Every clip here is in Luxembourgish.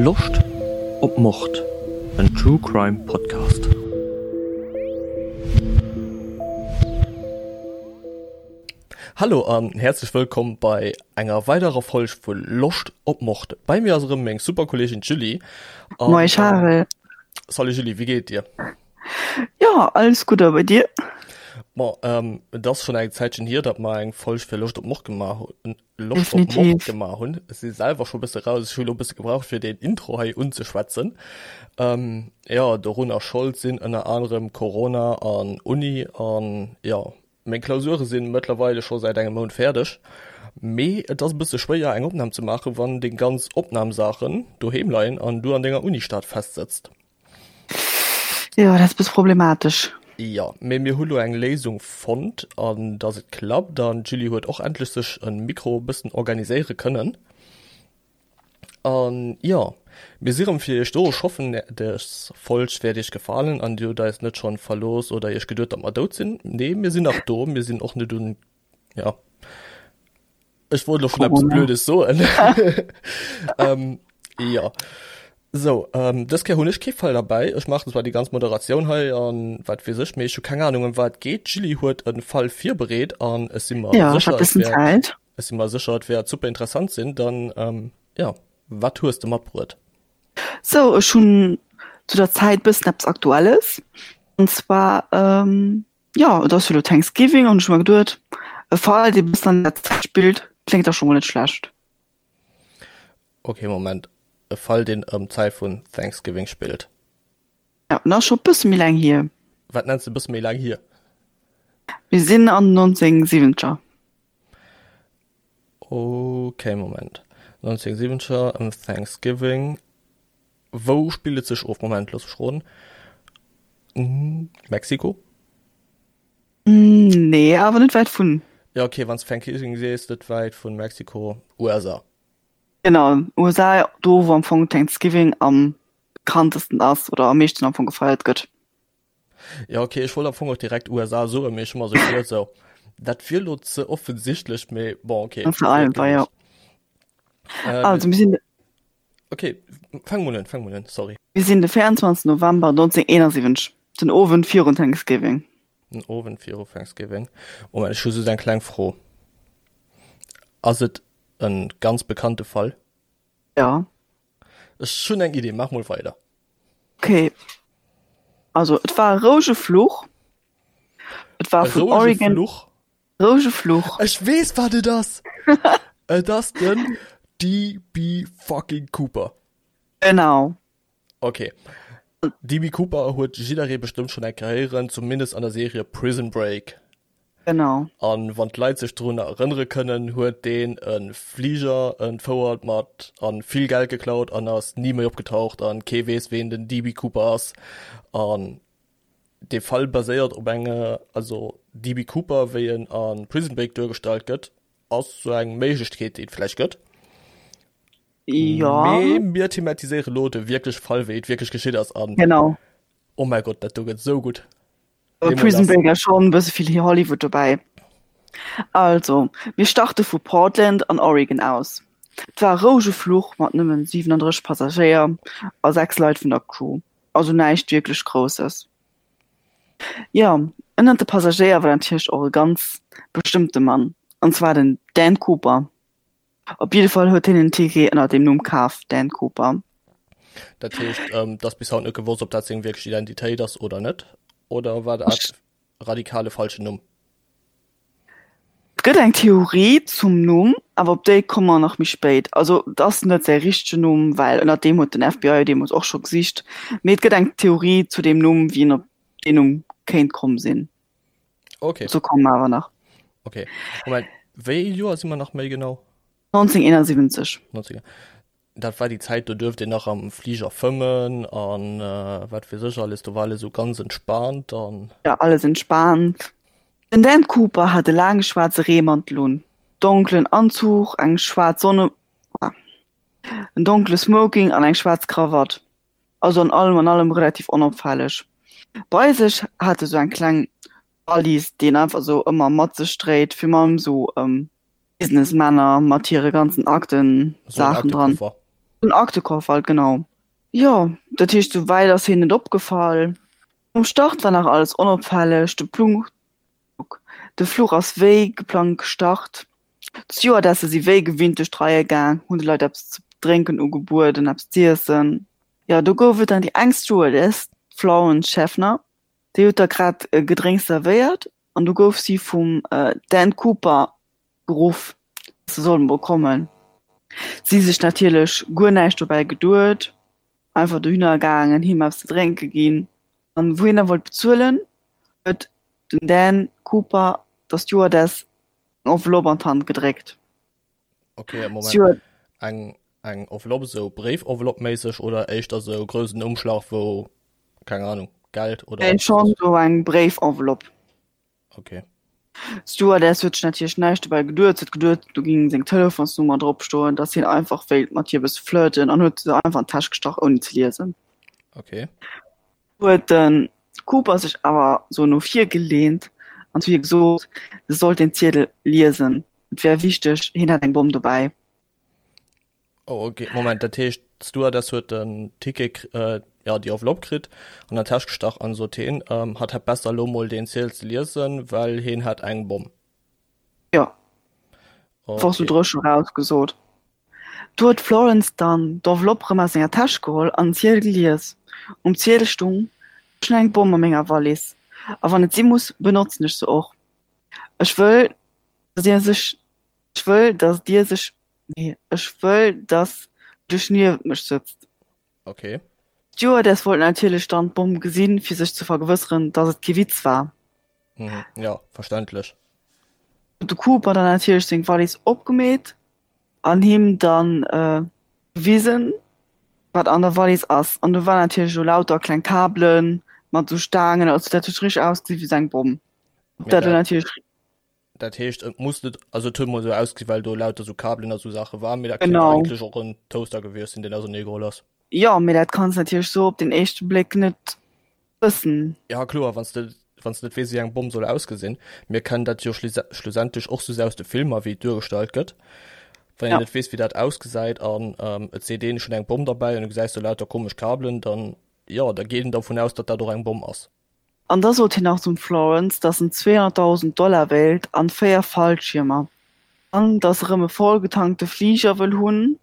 Loscht op Mord? En True Crime Podcast. Hallo an häerzlech wëllkomm bei enger weiderer Folg vu Loscht op Mord. Bei mir ass erëm meng super Kolleegin d'Julie. Moin Charel. Salut Julie, wéi geet et dir? Jo, alles gutt a bei dir? Bon, ähm, et ass schonn eng Zäitchen hier, datt mer eng Folg fir Loscht op Mord gemaach hunn. Loscht op Mord gemaach hunn. Ech si selwer scho bësse raus, ech hu lo bësse gebraucht fir deen Intro hei unzeschwätzen. Ähm, jo, dorunner Schold sinn ënner anerem Corona an Uni an jo, meng Klausurë sinn mëttlerweile scho säit engem Mount fäerdeg. Mee et ass e bësse schwéier eng Opnam ze maachen, wann deng ganz Opnamsaachen doheem leien an du an denger Unistad festsëtzt. Jo, dat ass bësse problematesch. Jo, mee mir hu lo eng Léisung fonnt an dass et klappt an d'Julie huet och endlech sech e Mikro e bëssen organiséiere kënnen. An jo, mir si rëm fir iech do. Ech hoffen des Folg wäert iech gefalen an dir hutt eis net schonn verlooss oder iech geduet datt mer dout sinn. Nee, mir sinn nach do, mir sinn och net un ja Ech wollt lo schon eppes Blödes soen. ähm, ja. So, ähm, dës Kéier hunn ech kee Fall derbäi. Ech maachen zwar déi ganz Moderatioun hei an wat weess ech, mee ech hu keng Ahnung ëm wat et geet. D'Julie huet e Fall virbereet an ech si mer Ja, ech sécher, hat et bëssen wäert, Zäit. ech si mer sécher, et wäert super interessant sinn. Dann, ähm, ja, wat hues de matbruet? So, ech hunn zu der Zäit bëssen eppes Aktuelles. An zwar, ähm, Jo, et ass jo elo Thanksgiving an ech hu mer geduet, e Fall, dee bëssen an der Zäit spillt, kléngt da scho mol net schlecht. Ok, Moment, e Fall, deen ëm d'Zäit vun Thanksgiving spillt? Jo, en ass scho bësse méi laang hier. Wat nenns de bësse méi laang hier? Mir sinn an den 1970er. Ok, Moment, 1970er, ëm Thanksgiving, Wou spillt et sech of? Moment, looss mech roden. Mexiko? Nee, awer net wäit vun. Ja, okay, wann s de Thanksgiving sees, net wäit vun Mexiko, USA. Genau, USA, do wou am Fong Thanksgiving am bekanntesten ass oder am meeschten am Fong gefeiert gëtt. Ja, okay, ech wollt am Fong och direkt USA soen, mee ech hu mer sou geduet, sou, dat wier lo ze offensichtlech, mee bon, okay. Ze einfach, ja. Also, mir sinn. Okay, fang mol un, fang mol un, sorry. Mir sinn de 24 November 1971, den Owend virun Thanksgiving. Den Owend viru Thanksgiving. Moment, ech hu just eng kleng Fro. Ass et e ganz bekannte Fall? Ja. Ech hunn eng Idee, maach mol weider. Okay. Also, et war e rouege Fluch. Et war E vun rouege Oregon. Fluch? Rouege Fluch. Ech weess wat et ass! Et ass den DB fucking Cooper. Genau. Okay. DB Cooper huet jidderee bestëmmt schonn eng Kéier héieren, zumindest an der Serie Prison Break. Genau. An wann d'Leit sech drun erënnere kënnen, huet deen e Fliger entfouert mat an vill Geld geklaut an ass ni méi opgetaucht an kee weess ween den DB Cooper ass. An Dee Fall baséiert op enge, also DB Cooper wéi en a Prison Break duergestallt gëtt, ass sou eng Méiglechkeet déi et vläicht gëtt. Jo. Mee mir thematiséiere lo de wierkleche Fall wéi et wierklech geschitt ass an. Genau. Oh mäi Gott, dat do gëtt sou gutt. Bei Prison Break ass schonn e bësse vill Hollywood dobäi. Also, mir starte vu Portland an Oregon aus. Et war e rouege Fluch mat nëmmen 37 Passagéier a 6 Leit vun der Crew. Also näischt wierklech Grousses. Jo, ënnert de Passagéier war natierlech och e ganz bestëmmte Mann, an zwar den Dan Cooper. Op jidde Fall huet hien en Ticket ënner deem Numm kaf, Dan Cooper. Dat heescht, et ass bis haut net gewosst, ob dat seng wierklech Identitéit ass oder net? Oder war dat radikal e falschen Numm? Et gëtt eng Theorie zum Numm, awer op déi komme mer nach méi spéit. Also et ass net säi richtegen Numm, well ënner deem huet den FBI deemools och scho gesicht. Mee et gëtt eng Theorie zu deem Numm, wéi en op deen Numm kéint komm sinn. Okay. Dozou komme mer awer nach. Okay. Moment, wéi ee Joer si mer nach méi genau? 1971. 19. Dat war déi Zäit, do duerft een nach am Fliger fëmmen an wat weess ech alles. Do war alles esou ganz entspaant an. Ja, alles entspaant. Den Dan Cooper hat e laange schwaarze Reemantel un, donkelen Anzuch, eng schwaarz Sonne, en donkele Smoking an eng schwaarz Krawatt. Also an allem an allem relativ onopfälleg. Bei sech hat e sou eng kleng Wallis, déi en einfach sou ëmmer mat sech dréit, virun allem sou Businessmänner mat hire ganzen Akten, Sou en Saachen dran. Aktekoffer. Den Aktekoffer halt, genau. Jo, dat heescht, sou wäit ass hien net opgefall. Um Start war nach alles onopfälleg, de Plug, de Fluch ass wéi geplangt gestart. D'Stewardesse si wéi gewinnt duerch d'Reie gaang, hunn de Leit eppes ze drénken ugebueden, eppes z'iessen. Jo, do gouf et dann déi eng Stewardess, d'Florence Schaffner, déi huet da grad e Gedrénks zerwéiert an du gouf si vum Dan Cooper geruff, dass se soll mol kommen. Si sech natierlech guer näischt dobäi geduet, einfach dohinner gaangen, him eppes ze drénke ginn an wou hien da wollt bezuelen, huet den Dan Cooper der Stewardess eng Enveloppe an d'Hand gedréckt. Ok, Moment, eng eng Enveloppe, esou Bréif-Enveloppe-méisseg oder éischter esou groussen Umschlag, wou, keng Ahnung, Geld oder Nee, schonn esou eng Bréif-Enveloppe. Ok. D'Stewardess huet sech natierlech näischt dobäi geduet. Se huet geduet, do géing seng Telefonsnummer drop stoen, dass hien einfach wéilt mat hir e bësse flirten an huet se einfach an d'Täsch gestach, ouni ze liesen. Ok. Huet de Cooper sech awer sou no vir geleent an zu hir gesot, se sollt den Ziedel liesen, et wär wichteg, hien hätt eng Bomm dobäi. Oh ok, Moment, dat heescht d'Stewardess huet den Ticket, jo déi Enveloppe kritt, an der Täsch gestach an sot heen, hatt hätt besser elo mol deen Ziedel ze liesen, well heen hätt eng Bomm. Jo, einfach sou dréchen eraus gesot. Du huet d'Florence dann d'Enveloppe rëm aus senger Täsch geholl an den Ziedel gelies. Um Ziedel stung, Ech hunn eng Bomm a menger Wallis, a wann et si muss, benotzen ech se och. Ech wëll, dass dir sech, ech wëll, dass dir sech, nee, ech wëll, dass du dech niewent mech sëtzt. Ok. D'Stewardess wollt natierlech dann d'Bomm gesinn, fir sech ze vergewësseren, dass et kee Witz war. Mhm, jo, verständlech. Huet de Cooper dann natierlech seng Wallis opgemeet an him dann gewisen, wat an der Wallis ass. An do war natierlech esou lauter kleng Kabelen mat esou Staangen, also dat huet richteg ausgesinn wéi esou eng Bomm. Mee dat dat. Dat heescht et muss net, also et huet mol esou ausgesinn, well do lauter esou Kabelen a sou Saache waren, mee dat kéint eigentlech och en Toaster gewiescht sinn, deen ausernee geholl ass. Jo, mee dat kanns natierlech sou op den éischte Bléck net wëssen. Ja kloer, wann s de wann s de net weess wéi eng Bomm soll ausgesinn. Mir kennen dat jo schlussendlech och sou aus de Filmer wéi et duergestallt gëtt. Wann een net weess wéi dat ausgesäit an et seet een ech hunn eng Bomm derbäi an du gesäis do lauter komesch Kabelen, dann jo, da geet een dervun aus, datt dat och eng Bomm ass. An da sot hien nach zum Florence, dass en 200.000 Dollar wéilt an 4 Fallschiermer, an dass e rëm e vollgetankte Fliger wëll hunn,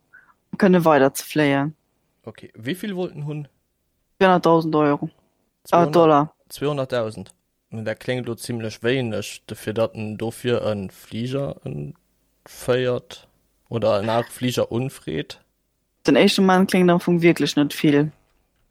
um kënne weider ze fléien. Ok, wéi vill wollt en hunn? 200.000 Euro, äh, Dollar. 200.000? Dat kléngt elo zimlech wéineg, dofir datt en dofir e Fliger entféiert oder en anere Fliger unfreet. Den éischte Moment kléngt am Fong wierklech net vill.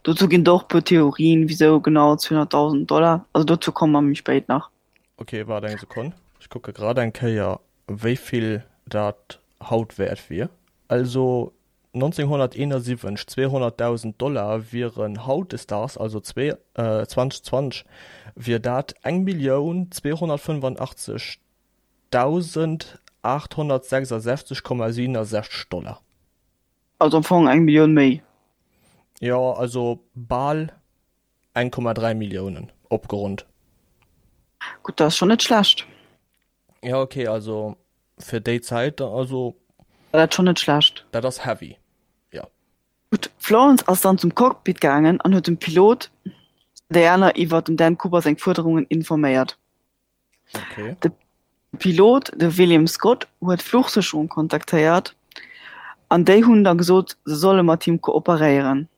Dozou ginn et och e puer Theorien, wisou genau 200.000 Dollar. Also dozou komme mer méi spéit nach. Ok, waart eng Sekonn, ech kucke grad eng Kéier wéi vill dat haut wäert wier. Also 1971, 200.000 Dollar wieren hautdesdaags, also 2020, wier dat 1.285.866,67 Dollar. Also am Fong eng Millioun méi. Jo, also bal 1,3 Milliounen, opgeronnt. Gutt, dat ass schonn net schlecht. Ja, okay, also fir déi Zäit, also. War dat schonn net schlecht. Dat ass heavy, jo. Gutt, d'Florence ass dann zum Cockpit gaangen an huet dem Pilot an déi aner iwwer dem Dan Cooper seng Fuerderungen informéiert. Okay. De Pilot, de William Scott, huet d'Fluchsécherung kontaktéiert an déi hunn da gesot, se solle mat him kooperéieren.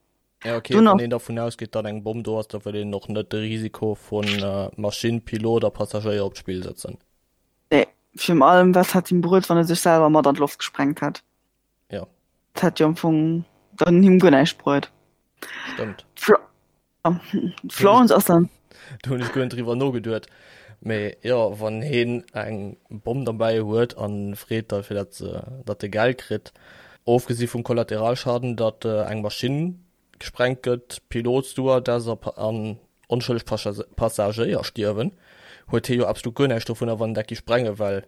Ja, okay, Dunn wann een dervun ausgeet, datt eng Bomm do ass, da wëll een och net de Risiko vu Maschinn, Pilot a Passagéier op d'Spill sëtzen. Nee, virun allem, wat hätt him bruet, wann e sech selwer mat an d'Loft gesprengt hätt? Ja. Dat hätt jo am Fong dann him guer näischt bruet. Stëmmt. D'Florence ass dann. Do hunn ech guer net driwwer nogeduet. Mee jo, wann heen eng Bomm derbäi huet an freet da fir dat se, datt e Geld kritt, ofgesi vum Kollateralschaden, datt eng Maschinn gesprengt gëtt, Pilot, Stewardess a an onschëlleg Passagéier stierwen, huet hee jo absolut guer näischt dovunner, wann en dat gi sprenge well.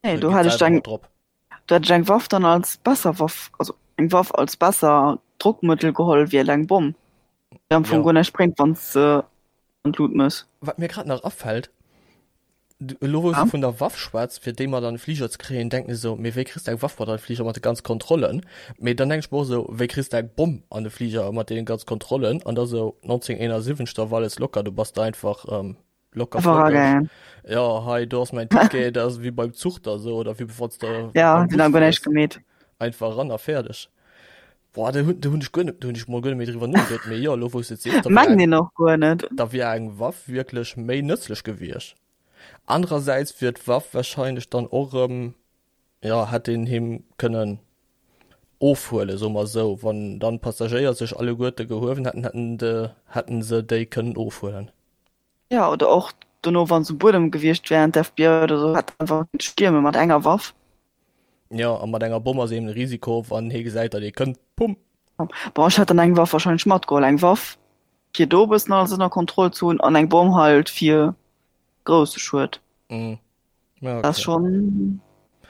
Nee, do hätt ech eng, do hätt ech eng Waff dann als besser Waff, also eng Waff als besser Drockmëttel geholl wéi eleng Bomm, déi am Fong guer näischt bréngt, wann s de an d'Lut mëss. Wat mir grad nach afält. Elo wou s de vun der Waff schwätz, fir déi mat an de Fliger ze kréien, denken ech esou, mee wéi kriss de eng Waff mat an de Fliger mat de ganz Kontrollen? Mee dann denken ech mer och esou, wéi kriss de eng Bomm an de Fliger mat deenen ganz Kontrollen? An da sou 1971, da war alles locker, du bass da einfach locker flockeg. Jo, hei do ass mäin Ticket, dat ass wéi beim Zuch da sou oder wéi wann s de beim Bus fiers. Einfach eran a fäerdeg. Boah, do hunn do hunn ech guer net, do hunn ech mol guer net méi driwwer nogeduet, mee jo, elo wou s de et sees, da wier eng, och guer net. da wier eng Waff wierklech méi nëtzlech gewiescht. Anerersäits wier d'Waff wahrscheinlech dann och erëm, jo, hätt een him kënnen ofhuelen, soe mer esou, wann dann d'Passagéier sech alleguerte gehuewen hätten, hätten de, hätten se déi kënnen ofhuelen. Jo, oder och dono, wann se um Buedem gewiescht wären, d'FBI oder sou hätt einfach kënne stierme mat enger Waff. Jo, a mat enger Bomm ass eben de Risiko, wann hie gesäit, datt ee kënnt, pumm! Bon, ech hätt dann eng Waff wahrscheinlech matgeholl. Eng Waff, fir do e bëssen alles ënner Kontroll ze hunn, an eng Bomm halt fir grousse Schued. Mhm. Ja, okay. Dat ass schonn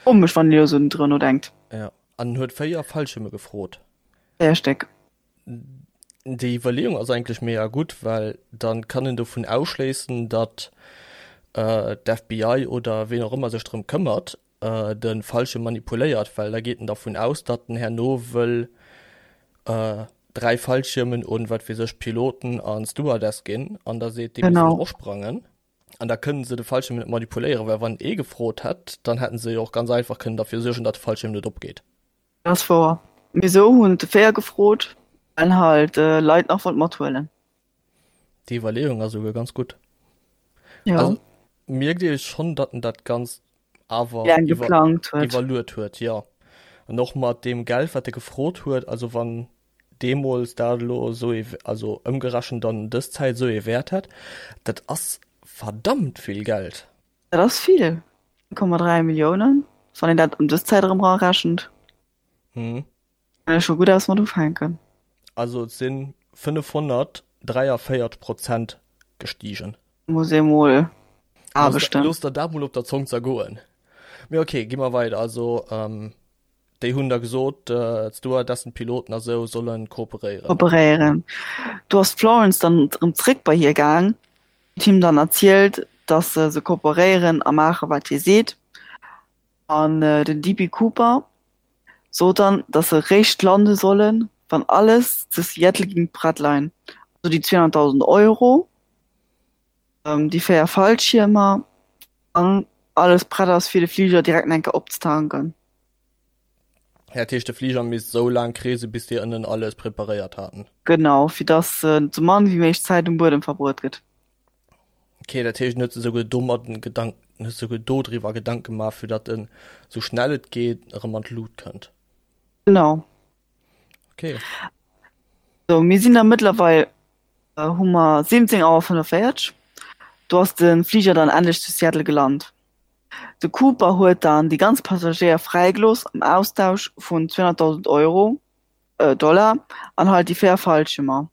komesch, wann een elo sou driwwer nodenkt. Ja, an en huet 4 Fallschierme gefrot. 4 Stéck. Déi Iwwerleeung ass eigentlech mega gutt, well dann kann en dovun ausschléissen, datt d'FBI oder ween och ëmmer sech drëm këmmert, de Fallschierm manipuléiert, well da geet en dervun aus, datt en herno wëll 3 Fallschiermen un, wat weess ech, Piloten an Stewardess ginn an da seet, déi mussen och sprangen. An da kënnen se de Fallschierm net manipuléieren, well wann ee gefrot hätt, dann hätten se jo och ganz einfach kënnen derfir suergen, datt de Fallschierm net opgeet. Dat ass wouer. Mee sou hunn et de 4 gefrot, well halt Leit nach wollt mathuelen. Déi Iwwerleeung ass esouguer ganz gutt. Jo. Also mierkt ee schonn, datt en dat Ganzt awer Laang geplangt huet. iwwerluet huet, jo. An och mat deem Geld, wat e gefrot huet, also wann deemools dat elo esou ee, also ëmgerechent dann dës Zäit esou ee Wäert hätt, dat ass verdammt vill Geld. Dat ass vill, 1,3 Milliounen, wann een dat ëm dës Zäit erëm erarechent. Mhm. Kann ee scho gutt eppes mat ufänken. Also et si 543 Prozent gestigen. Muss ee mol aarbechten. Looss der dat mol op der Zong zergoen. Mee ok, gi mer weider. Also déi hunn da gesot, d'Stewardessen, d'Piloten a sou solle kooperéieren. Kooperéieren. Do ass d'Florence dann erëm zréck bei hie gaang huet him dann erzielt, dass se se kooperéieren a maache wat hie seet. An den DB Cooper sot dann, dass se réischt lande sollen, wann alles zu Seattle ging prett leien, also déi 200.000 Euro, déi 4 Fallschiermer an alles prett ass fir de Fliger direkt nach eng Kéier opzetanken. Dat heescht de Fliger misst esou laang kreese bis déi ënnen alles preparéiert haten. Genau, fir dass sou mann wéi méiglech Zäit um Buedem verbruet gëtt. Ok, dat heescht en huet sech esouguer domat en Gedank, en huet sech esouguer dodriwwer Gedanke gemaach fir datt en esou schnell et geet erëm an d'Lut kënnt. Genau. Ok. Sou, mir sinn da mëttlerweil, hu mer 17 Auer 45, do ass de Fliger dann endlech zu Seattle gelant. De Cooper huet dann déi ganz Passagéier fräigelooss am Austausch vun 200.000 Euro, Dollar an halt déi 4 Fallschiermer.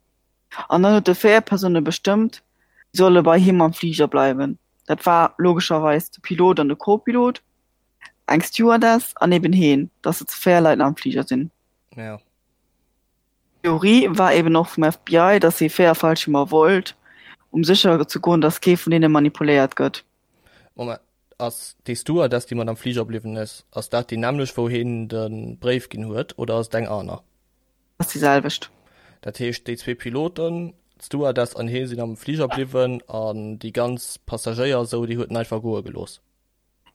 An dann huet e 4 Persoune bestëmmt, déi solle bei him am Fliger bleiwen. Dat war logescherweis de Pilot an de Co-Pilot, eng Stewardess an eben heen, dass se zu 4 Leit nach am Fliger sinn. Ja. D'Theorie war eben och vum FBI, dass hee 4 Fallschiermer wollt, um sécher ze goen, dass kee vun deene manipuléiert gëtt. Moment, ass déi Stewardess, déi mat am Fliger bliwwen ass, ass dat déi nämmlecht, wou heen de Bréif ginn huet, oder ass et eng aner? Ass déi selwecht. Dat heescht, déi zwee Piloten, d'Stewardess an hee sinn am Fliger bliwwen an déi ganz Passagéier esou, déi huet en einfach goe gelooss?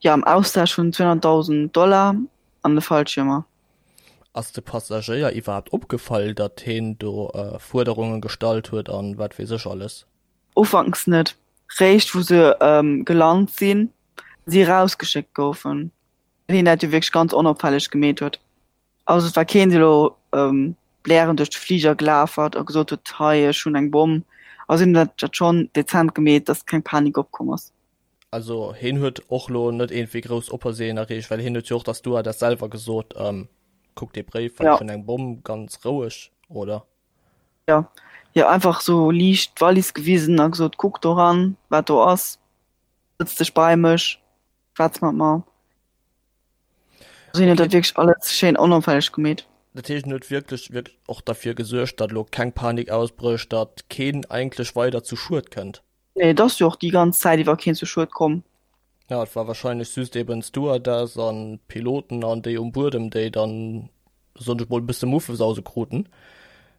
Jo, am Austausch vun 200.000 Dollar an de Fallschiermer. Ass de Passagéier iwwerhaapt opgefall, datt heen do Fuerderunge gestallt huet an wat weess ech alles? Ufanks net, réischt wou se gelant sinn, si erausgeschéckt goufen, well hien dat jo wierklech ganz onopfälleg gemeet huet. Also et war keen, dee lo blärend duerch de Fliger gelaf ass a gesot huet, hei ech hunn eng Bomm. Also hien huet dat schonn dezent gemeet, datt keng Panik opkomm ass. Also hien huet och lo net iergendwéi grouss Opersehen erreecht, well hien huet jo och der Stewardess selwer gesot, kuck dee Bréif, well ech hunn eng Bomm, ganz roueg, oder? Jo, jo einfach sou liicht d'Wallis gewisen a gesot, kuck do ran, wat do ass, sëtz dech bei mech, schwätz mat mer. Also hien huet dat wierklech alles schéin onopfälleg gemeet. Dat heescht, en huet wierklech, wierklech och derfir gesuergt, datt elo keng Panik ausbrécht, datt keen eigentlech weider zu Schued kënnt. Nee, et ass jo och déi ganz Zäit iwwer keen zu Schued komm. Ja, et war wahrscheinlech just eben d'Stewardess an d'Piloten an déi um Buedem, déi dann, soen ech mol, e bësse Muffesause kruten.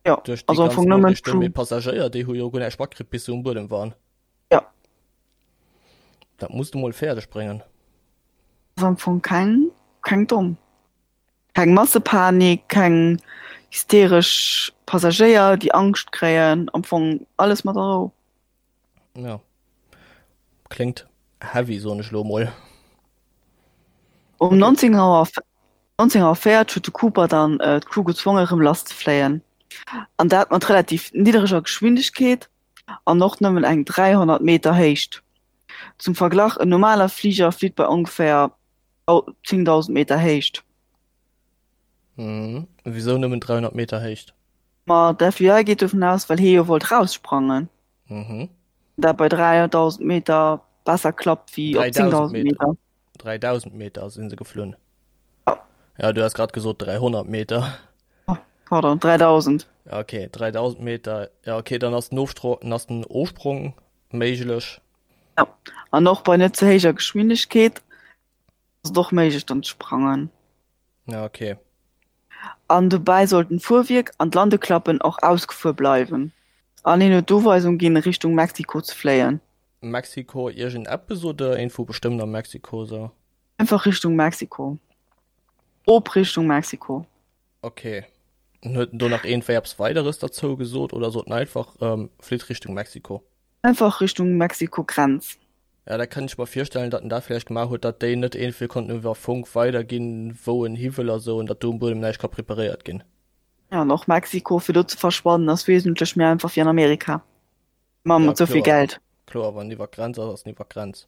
Ja, Duerch déi also am ganz Fong nëmmen Noriichten. d'Crew. Mee d'Passagéier, déi hu jo guer näischt matkritt, bis se um Buedem waren. Ja. Dat muss de mol fäerdeg bréngen. Ass am Fong keng, keng domm. Keng Massepanik, keng hysteresch Passagéier, déi Angscht kréien, am Fong alles mat der Rou. Ja. Kléngt heavy, soen ech lo mol. Um Okay. 19 Auer, 19 Auer 40 huet de Cooper dann d'Crew gezwongen, erëm lasszefléien. An dat mat relativ niddereger Geschwindegkeet an och nëmmen eng 300 Meter Héicht. Zum Verglach, en normaler Fliger flitt bei ongeféier 10.000 Meter Héicht. Mhm. Wisou nëmmen 300 Meter Héicht? Ma d'FBI geet dovun aus, well hie jo wollt raussprangen. Mhm. Dat bei 3.000 Meter besser klappt wéi op 3000 10.000 Meter. Meter. 3000 Meter sinn se geflunn. Ja. Ja, du has grad gesot 300 Meter. Oh, pardon, 3000. Ja, okay, 3000 Meter. Ja, okay, dann ass den Ofstro ass den Ofsprong méiglech. Ja. An och bei net ze héijer Geschwindegkeet ass et och méiglech dann ze sprangen. Ja, okay. An dobäi sollten d'Fuerwierk an d'Landeklappen och ausgefuer bleiwen. An hien huet d'Uweisung ginn, Richtung Mexiko ze fléien. Mexiko iergend eppes oder iergendwou bestëmmt a Mexiko sou? Einfach Richtung Mexiko. Op Richtung Mexiko. Ok. An huet en do nach iergendwéi eppes Weideres derzou gesot oder sot en einfach, flitt Richtung Mexiko? Einfach Richtung Mexiko-Grenz. Ja, dat kann ech mer virstellen, datt en dat vläicht gemaach huet, datt déi net iergendwéi konnten iwwer Funk weiderginn, wou en hi wëll a sou, an datt do um Buedem näischt ka preparéiert ginn. Ja, an och Mexiko, fir do ze verschwannen, ass wesentlech méi einfach wéi an Amerika. Ma Ja, mat sou vill kloer. Geld. Kloer, wann en iwwer d'Grenz ass, ass en iwwer d'Grenz.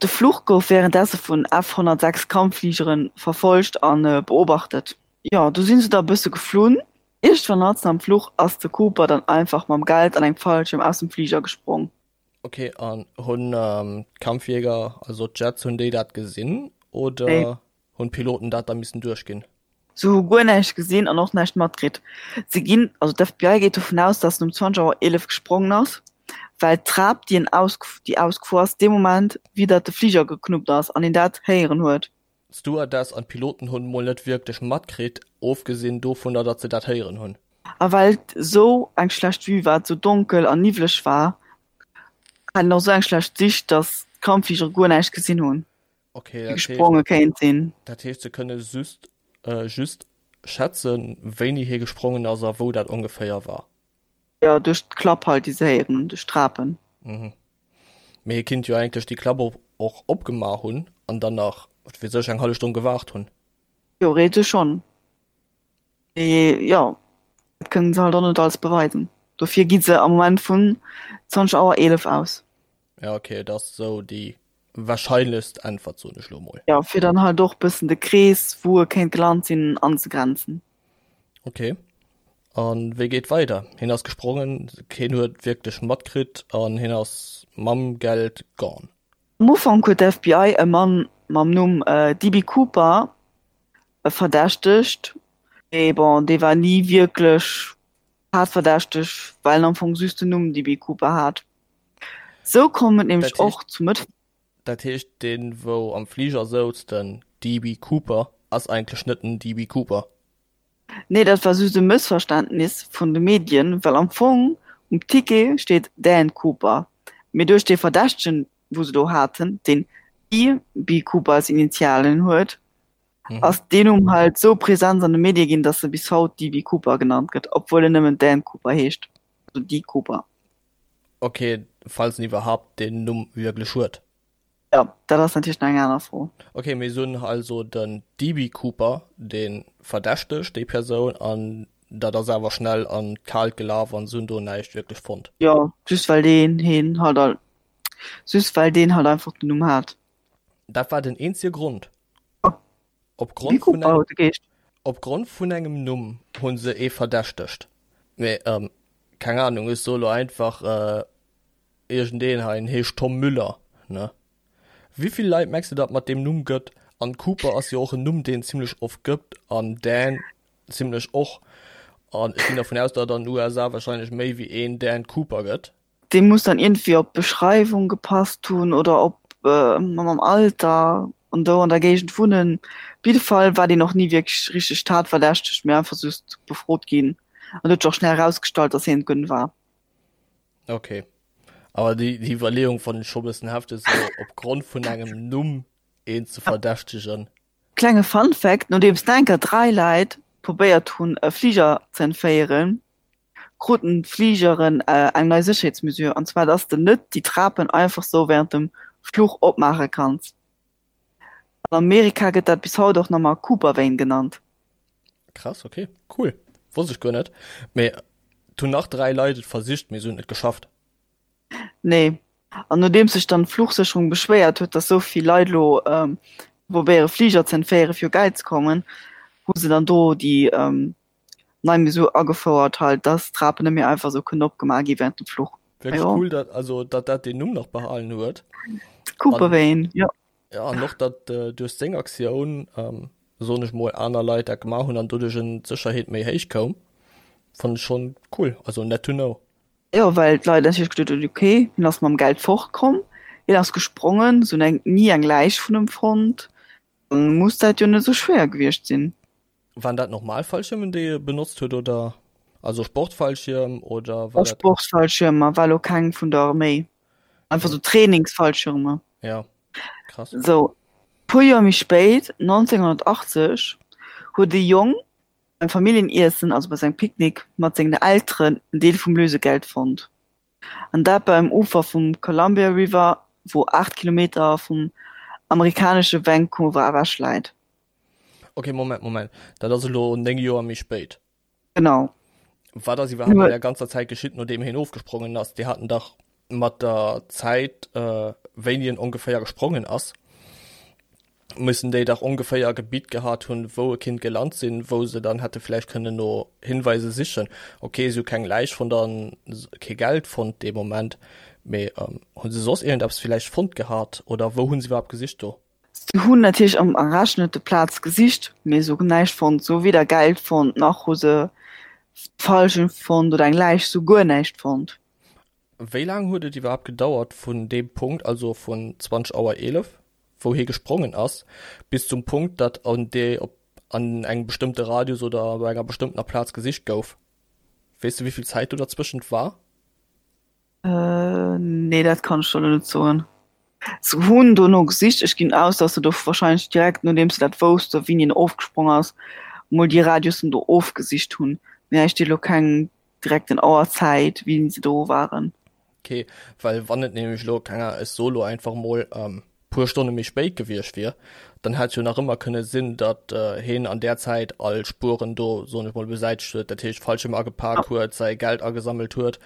De Fluch gouf wärendesse vun F 106 Kampffligere verfollegt a beobachtet. Jo, do si se da e bësse geflunn. Iergendwann matzen am Fluch ass de Cooper dann einfach mam Geld an engem Fallschierm aus dem Fliger gesprong. Ok, an hunn d'Kampfjäger, also d'Jets, hunn déi dat gesinn oder Nee. hunn d'Piloten dat da missen duerchginn? Se hu guer näischt gesinn an och näischt matkritt. Se ginn, also d'FBI geet dovun aus, dass en um 20 Auer 11 gesprongen ass, well d'Trap, déi en aus, déi ausgefuer ass, dee Moment widder de Fliger geknuppt ass an een dat héieren huet. D'Stewardess an d'Piloten hunn mol net wierklech matkritt, ofgesinn dovunner, datt se dat héieren hunn. A well et esou eng schlecht Vue war, et esou donkel an niwwleg war, hat een och esou eng schlecht Sicht, dass d'Kampffligere guer näischt gesinn hunn, Okay, déi dat heescht, gespronge kéint sinn. dat heescht se kënne just, just schätzen, wéini hie gesprongen ass a wou dat ongeféier war. Jo, duerch d'Klapp halt, déi se héieren hunn, duerch d'Trapen. Mhm. Mee hie kinnt jo eigentlech déi Klapp och och opgemaach hunn an dann nach, wat weess ech, eng hallef Stonn gewaart hunn. Theoretesch schonn. Mee jo, dat kënnen se halt och net alles beweisen. Dofir gi se am Moment vun 20 Auer 11 aus. Ja, okay, dat ass esou déi wahrscheinlechst Äntwert, soen ech lo mol. Jo, fir dann halt och bëssen de Krees, wou e kéint gelant sinn, anzegrenzen. Ok. An wéi geet weider? Hien ass gesprongen, keen huet wierklech matkritt an hien ass mam Geld gone. Am Ufank huet d'FBI e Mann mam Numm DB. Cooper verdächtegt, mee bon, dee war ni wierklech tatverdächteg, well en am Fong just den Numm DB. Cooper hat. Sou koum et nämlech och zu Mëtt. Dat heescht, deen wou am Fliger souz, den DB. Cooper, ass eigentlech net den DB. Cooper? Nee, dat war just e Mëssverständnis vun de Medien, well am Fong um Ticket steet Dan Cooper, mee duerch dee Verdächtegen, wou se do haten, deen DB. Cooper als Initialen huet, ass deen Numm halt sou present an de Medie ginn, datt e bis haut DB. Cooper genannt gëtt, obwuel en nëmmen Dan Cooper heescht, also D. Cooper. Ok, falls en iwwerhaapt deen Numm wierklech huet. Jo, dat ass natierlech nach eng aner Fro. Ok, mir hunn also den DB. Cooper, dee verdächtegt déi Persoun, an dat ass awer schnell an d'Kaalt gelaf an se hunn do näischt wierklech fonnt. Jo, just well deen heen halt al, just well deen halt einfach den Numm hat. Dat war den eenzege Grond. Jo, Op DB. Grond vun Cooper engem, huet e geheescht. op Grond vun engem Numm hu se ee verdächtegt. Mee, keng Ahnung, ech soe lo einfach, Iergendeen hei, en heescht Tom Müller, ne? Wéivill Leit mengs de datt mat deem Numm gëtt? An Cooper ass jo och en Numm deen zimlech oft gëtt an Dan zimlech och. An ech ginn dervun aus datt an den USA wahrscheinlech méi wéi een Dan Cooper gëtt. Dee muss dann iergendwéi op d'Beschreiwung gepasst hunn oder op. mam Alter an do an der Géigend wunnen. Op jidde Fall war deen och ni wierklech richteg tatverdächteg, mee einfach just befrot ginn an huet sech och schnell erausgestallt, dass hien et guer net war. Okay. Awer déi, déi Iwwerleeung fannen ech scho bëssen hefteg, sou opgrond vun engem Numm een ze verdächtegen. Klenge Fun Fact, Nodeems enker 3 Leit probéiert hunn e Fliger ze entféieren, kruten d'Fligeren eng nei Sécherheetsmesure, an zwar dass de net déi Trapen einfach sou wärend dem Fluch opmaache kanns. An Amerika gëtt dat bis haut och nach mar Cooper-Vane genannt. Krass, ok, cool, wosst ech guer net. Mee et hunn nach 3 Leit et versicht, mee se hunn et net geschafft. Nee. An nodeems sech dann d'Fluchsécherung beschwéiert huet, dass sou vill Leit elo probéiere Fliger ze entféiere fir u Geld ze kommen, hu se dann do déi nei Mesure agefouert halt, dass d'Trapen net méi einfach sou kënnen opgemaach gi während dem Fluch. Wierklech cool, dat, also datt dat deen Numm nach behalen huet. Cooper-Vane, jo. Ja, an och datt duerch seng Aktioun, soen ech mol, aner Leit dat gemaach hunn an doduerch en d'Sécherheet méi héich koum, fannen ech schonn cool, also net to know. Jo, well d'Leit natierlech geduet hunn, ok, hien ass mam Geld fortkomm, hien ass gesprongen, se hunn eng ni eng Läich vun em fonnt, dann muss dat jo net esou schwéier gewiescht sinn. Waren dat normal Fallschiermen déi e benotzt huet oder also Sportfallschierm oder war dat? Sportfallschiermer, war lo keng vun der Arméi, einfach sou Trainingsfallschirmer. Ja, krass. Sou, puer Joer méi spéit, 1980, huet e Jong beim Familljeniessen, also bei sengem Picknick mat sengen Elteren, en Deel vum Lösegeld fonnt. An dat beim Ufer vum Columbia River, wou 8 Kilometer vum amerikanesche Vancouver ewech läit. Ok, Moment, Moment, dat ass elo 9 Joer méi spéit. Genau. Wat ass iwwerhaapt an der ganzer Zäit geschitt, nodeem hien ofgesprongen ass? Déi haten dach mat der Zäit, wéini en ongeféier gesprongen ass, mussen déi dach ongeféier e Gebitt gehat hunn, wou e kinnt gelant sinn, wou se dann hätte vläicht kënnen no Hinweise sichen. Ok, si hu keng Läich fonnt an kee Geld fonnt dee Moment, mee hu se soss iergendeppes vläicht fonnt gehat oder wou hu se iwwerhaapt gesicht do? Se hunn natierlech am errechnete Plaz gesicht, mee se hunn näischt fonnt. Se hu weder Geld fonnt, nach hu se Fallschirm fonnt oder eng Läich, se hu guer näischt fonnt. Wéi laang huet et iwwerhaapt gedauert vun deem Punkt, also vun 20 Auer 11, wou hie gesprongen ass, bis zum Punkt, datt an dee op an engem bestëmmte Radius oder op enger bestëmmtener Plaz gesicht gouf? Weess de wéi vill Zäit do derzwëschent war? Äh, nee, dat kann ech der elo net soen. Se hunn dono gesicht. Ech ginn aus, datt se do warscheinlech direkt nodeems se dat wousste wéini en ofgesprong ass, mol déi Radiussen do ofgesicht hunn. Mee hei steet elo keng direkten Auerzäit, wéini se do waren. Ok, well wann et nämlech elo, keng Ahnung, ech soe lo einfach mol, puer Stonne méi spéit gewiescht wier, dann hätt jo nach ëmmer kënne sinn, datt heen an där Zäit all Spueren do, soen ech mol, besäitegt huet, dat heescht Fallschirm agepak huet, säi Geld agesammelt huet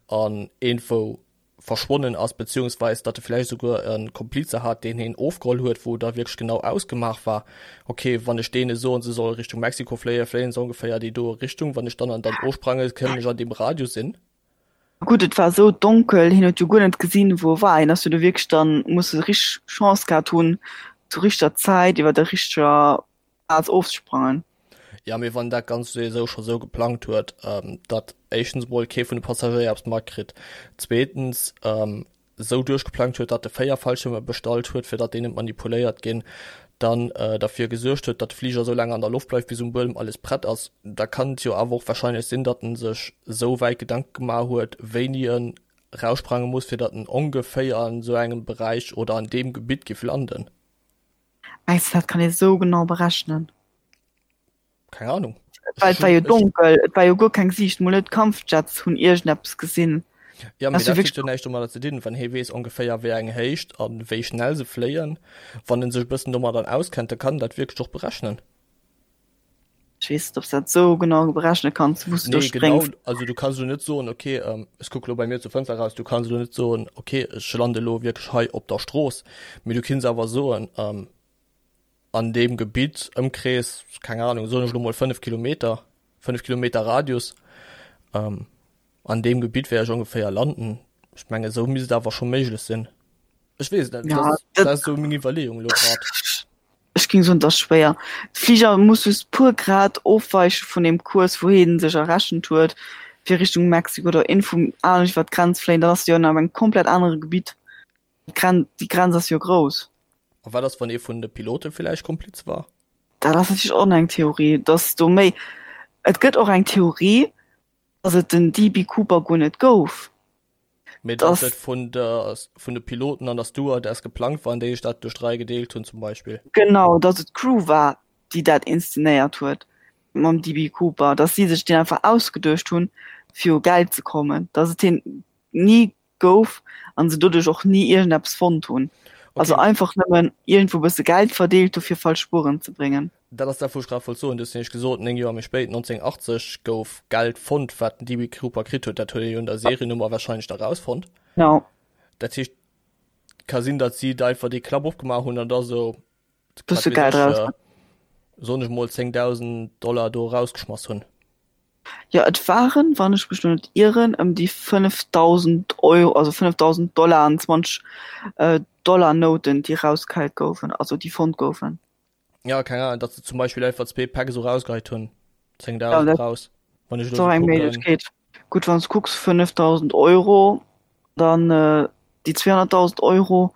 an iergendwou verschwonnen ass, beziehungsweis datt e vläicht esouguer e Komplize hat, deen heen ofgeholl huet, wou da wierklech genau ausgemaach war, ok, wann ech deene soen, se solle Richtung Mexiko fléien, fléien se ongeféier déi doe Richtung, wann ech dann an dann ofsprange, kënnen ech an deem Radius sinn. Gutt, et war esou donkel, hien huet jo guer net gesinn, wou e war. Hien ass jo do wierklech dann, muss e richteg Chance gehat hunn, zur richteger Zäit iwwer der richteger Plaz ofzesprangen. Jo, mee wann dat Ganzt souwisou scho sou geplangt huet, datt éischtens emol kee vun de Passagéier eppes matkritt, zweetens esou duerchgeplangt huet, datt e 4 Fallschierme bestallt huet, fir datt déi net manipuléiert ginn, dann derfir gesuergt huet, datt de Fliger esou laang an der Loft bleift, bis um Buedem alles prett ass, da kann et jo awer och warscheinlech sinn, datt en sech esou wäit Gedanke gemaach huet, wéini en raussprange muss, fir datt en ongeféier an esou engem Beräich oder an deem Gebitt giff landen. Mengs de, dat kann ee sou genau berechnen? Keng Ahnung. Well et war jo donkel, et war jo guer keng Siicht, mol net d'Kampfjets hunn iergendeppes gesinn. Ja, mee dat huet jo näischt domadder ze dinn, wann hee weess ongeféier wéi eng Héicht a wéi schnell se fléien, wann en sech e bëssen domadder auskennt, da kann en dat wierklech och berechnen. Ech weess net, ob s dat sou genau berechne kanns, wou s du do Nee, genau, spréngs. also du kanns elo net soen, okay, ech kucke lo bei mir zur Fënster eraus, du kanns elo net soen, okay, ech lande elo wierklech hei op der Strooss, mee du kinns awer soen, an deem Gebitt, Ëmkrees, keng Ahnung, soen ech elo mol 5 Kilometer, 5 Kilometer Radius, an deem Gebitt wäert ech ongeféier landen. Ech mengen, esou misst et awer scho méiglech sinn. Ech weess et net, Ja, dat ass, dat dat ass esou meng Iwwerleeung elo grad. Ech géing soen, et ass schwéier. De Fliger muss just puer Grad ofweiche vun deem Kurs, wou hie sech errechent huet, fir Richtung Mexiko oder iergendwou anescht iwwer d'Grenz fléien. Dann ass de jo an engem komplett anere Gebitt. D'Gren déi Grenz ass jo grouss. A wat ass, wann ee vun de Pilote villäicht Kompliz war? Dat ass natierlech och eng Theorie, dass do méi. Et gëtt och eng Theorie, dass et den DB Cooper guer net gouf. Mee dass et vun der vun de Piloten an der Stewardess geplangt war an déi sech dat duerch 3 gedeelt hunn zum Beispill. Genau, dass et d'Crew war, déi dat inszenéiert huet mam DB Cooper, dass si sech deen einfach ausgeduecht hunn, fir u Geld ze kommen, dass et hien ni gouf an se doduerch och ni iergendeppes fonnt hunn. Also Okay. einfach nëmmen iergendwou bësse Geld verdeelt hu fir falsch Spueren ze bréngen. Dat ass dat wou ech grad wollt soen. Du hues nämlech gesot, 9 Joer méi spéit, 1980, gouf Geld fonnt, wat den DB Cooper kritt huet. Dat huet ee jo un der Seriennummer wahrscheinlech da rausfonnt. Genau. Dat heescht, ka sinn, datt si da einfach dee Klapp opgemaach hunn an da sou, wat Bësse weess Geld ech, raus. soen ech mol 10.000 Dollar do erausgeschmass hunn. Jo, et waren, wann ech mech lo net ieren, ëm déi 5.000 Euro, also 5.000 Dollar an 20 Dollar-Nouten, déi erausgeheit goufen, also déi fonnt goufen. Ja, keng Ahnung, datt se zum Beispill einfach zwee Päck esou rausgeheit hunn, 10.000 Ja, dat raus, wann ech ass elo och esou eng kucken. Méiglechkeet. Gutt, wann s de kucks, 5.000 Euro, dann déi 200.000 Euro,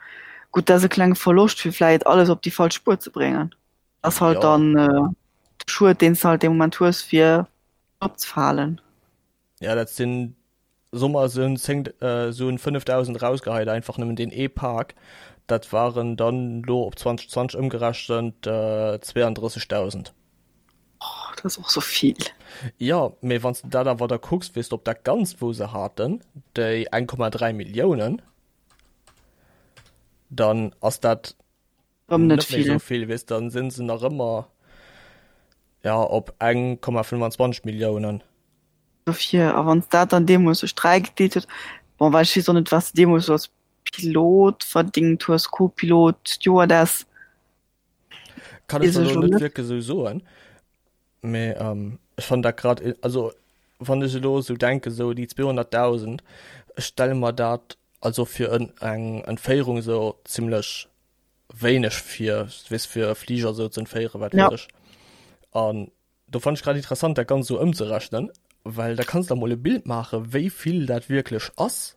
gutt, dat ass e klenge Verloscht, fir vläicht alles op déi falsch Spuer ze bréngen. Ass halt Jo. dann de Schued, deen s de halt dee Moment hues, fir opzefalen. Ja, dat sinn, soe mer, se hunn 10, se hunn 5.000 erausgeheit, einfach nëmmen deen ee Pak. Dat waren dann elo op 2020 ëmgerechent 32.000. Oh, dat ass och sou vill. Jo, mee wann s de dat awer da kucks, weess de, op dat Ganzt, wou se haten, déi 1,3 Milliounen, dann ass dat Rëm net net méi vill. sou vill, weess, dann sinn se nach ëmmer, ja, op 1,25 Milliounen. Dofir, a wann s dat dann deemools duerch 3 gedeelt huet, bon, well ech weess och net, wat s de deemools sou als Pilot verdingt hues, Co-Pilot, Stewardess. Kann ech Weess der ech lo lo net net. wierklech sou soen, mee ech fannen dat grad, also wann ech elo sou denken, sou déi 200.000, ech stelle mer dat also fir en eng Entféierung sou zimlech wéineg vir, weess fir e Fliger sou ze entféieren, wat Ja. weess ech. An do fannt ech grad interessant dat Ganzt sou ëmzerechnen, well da kanns de der mol e Bild maachen, wéi vill dat wierklech ass.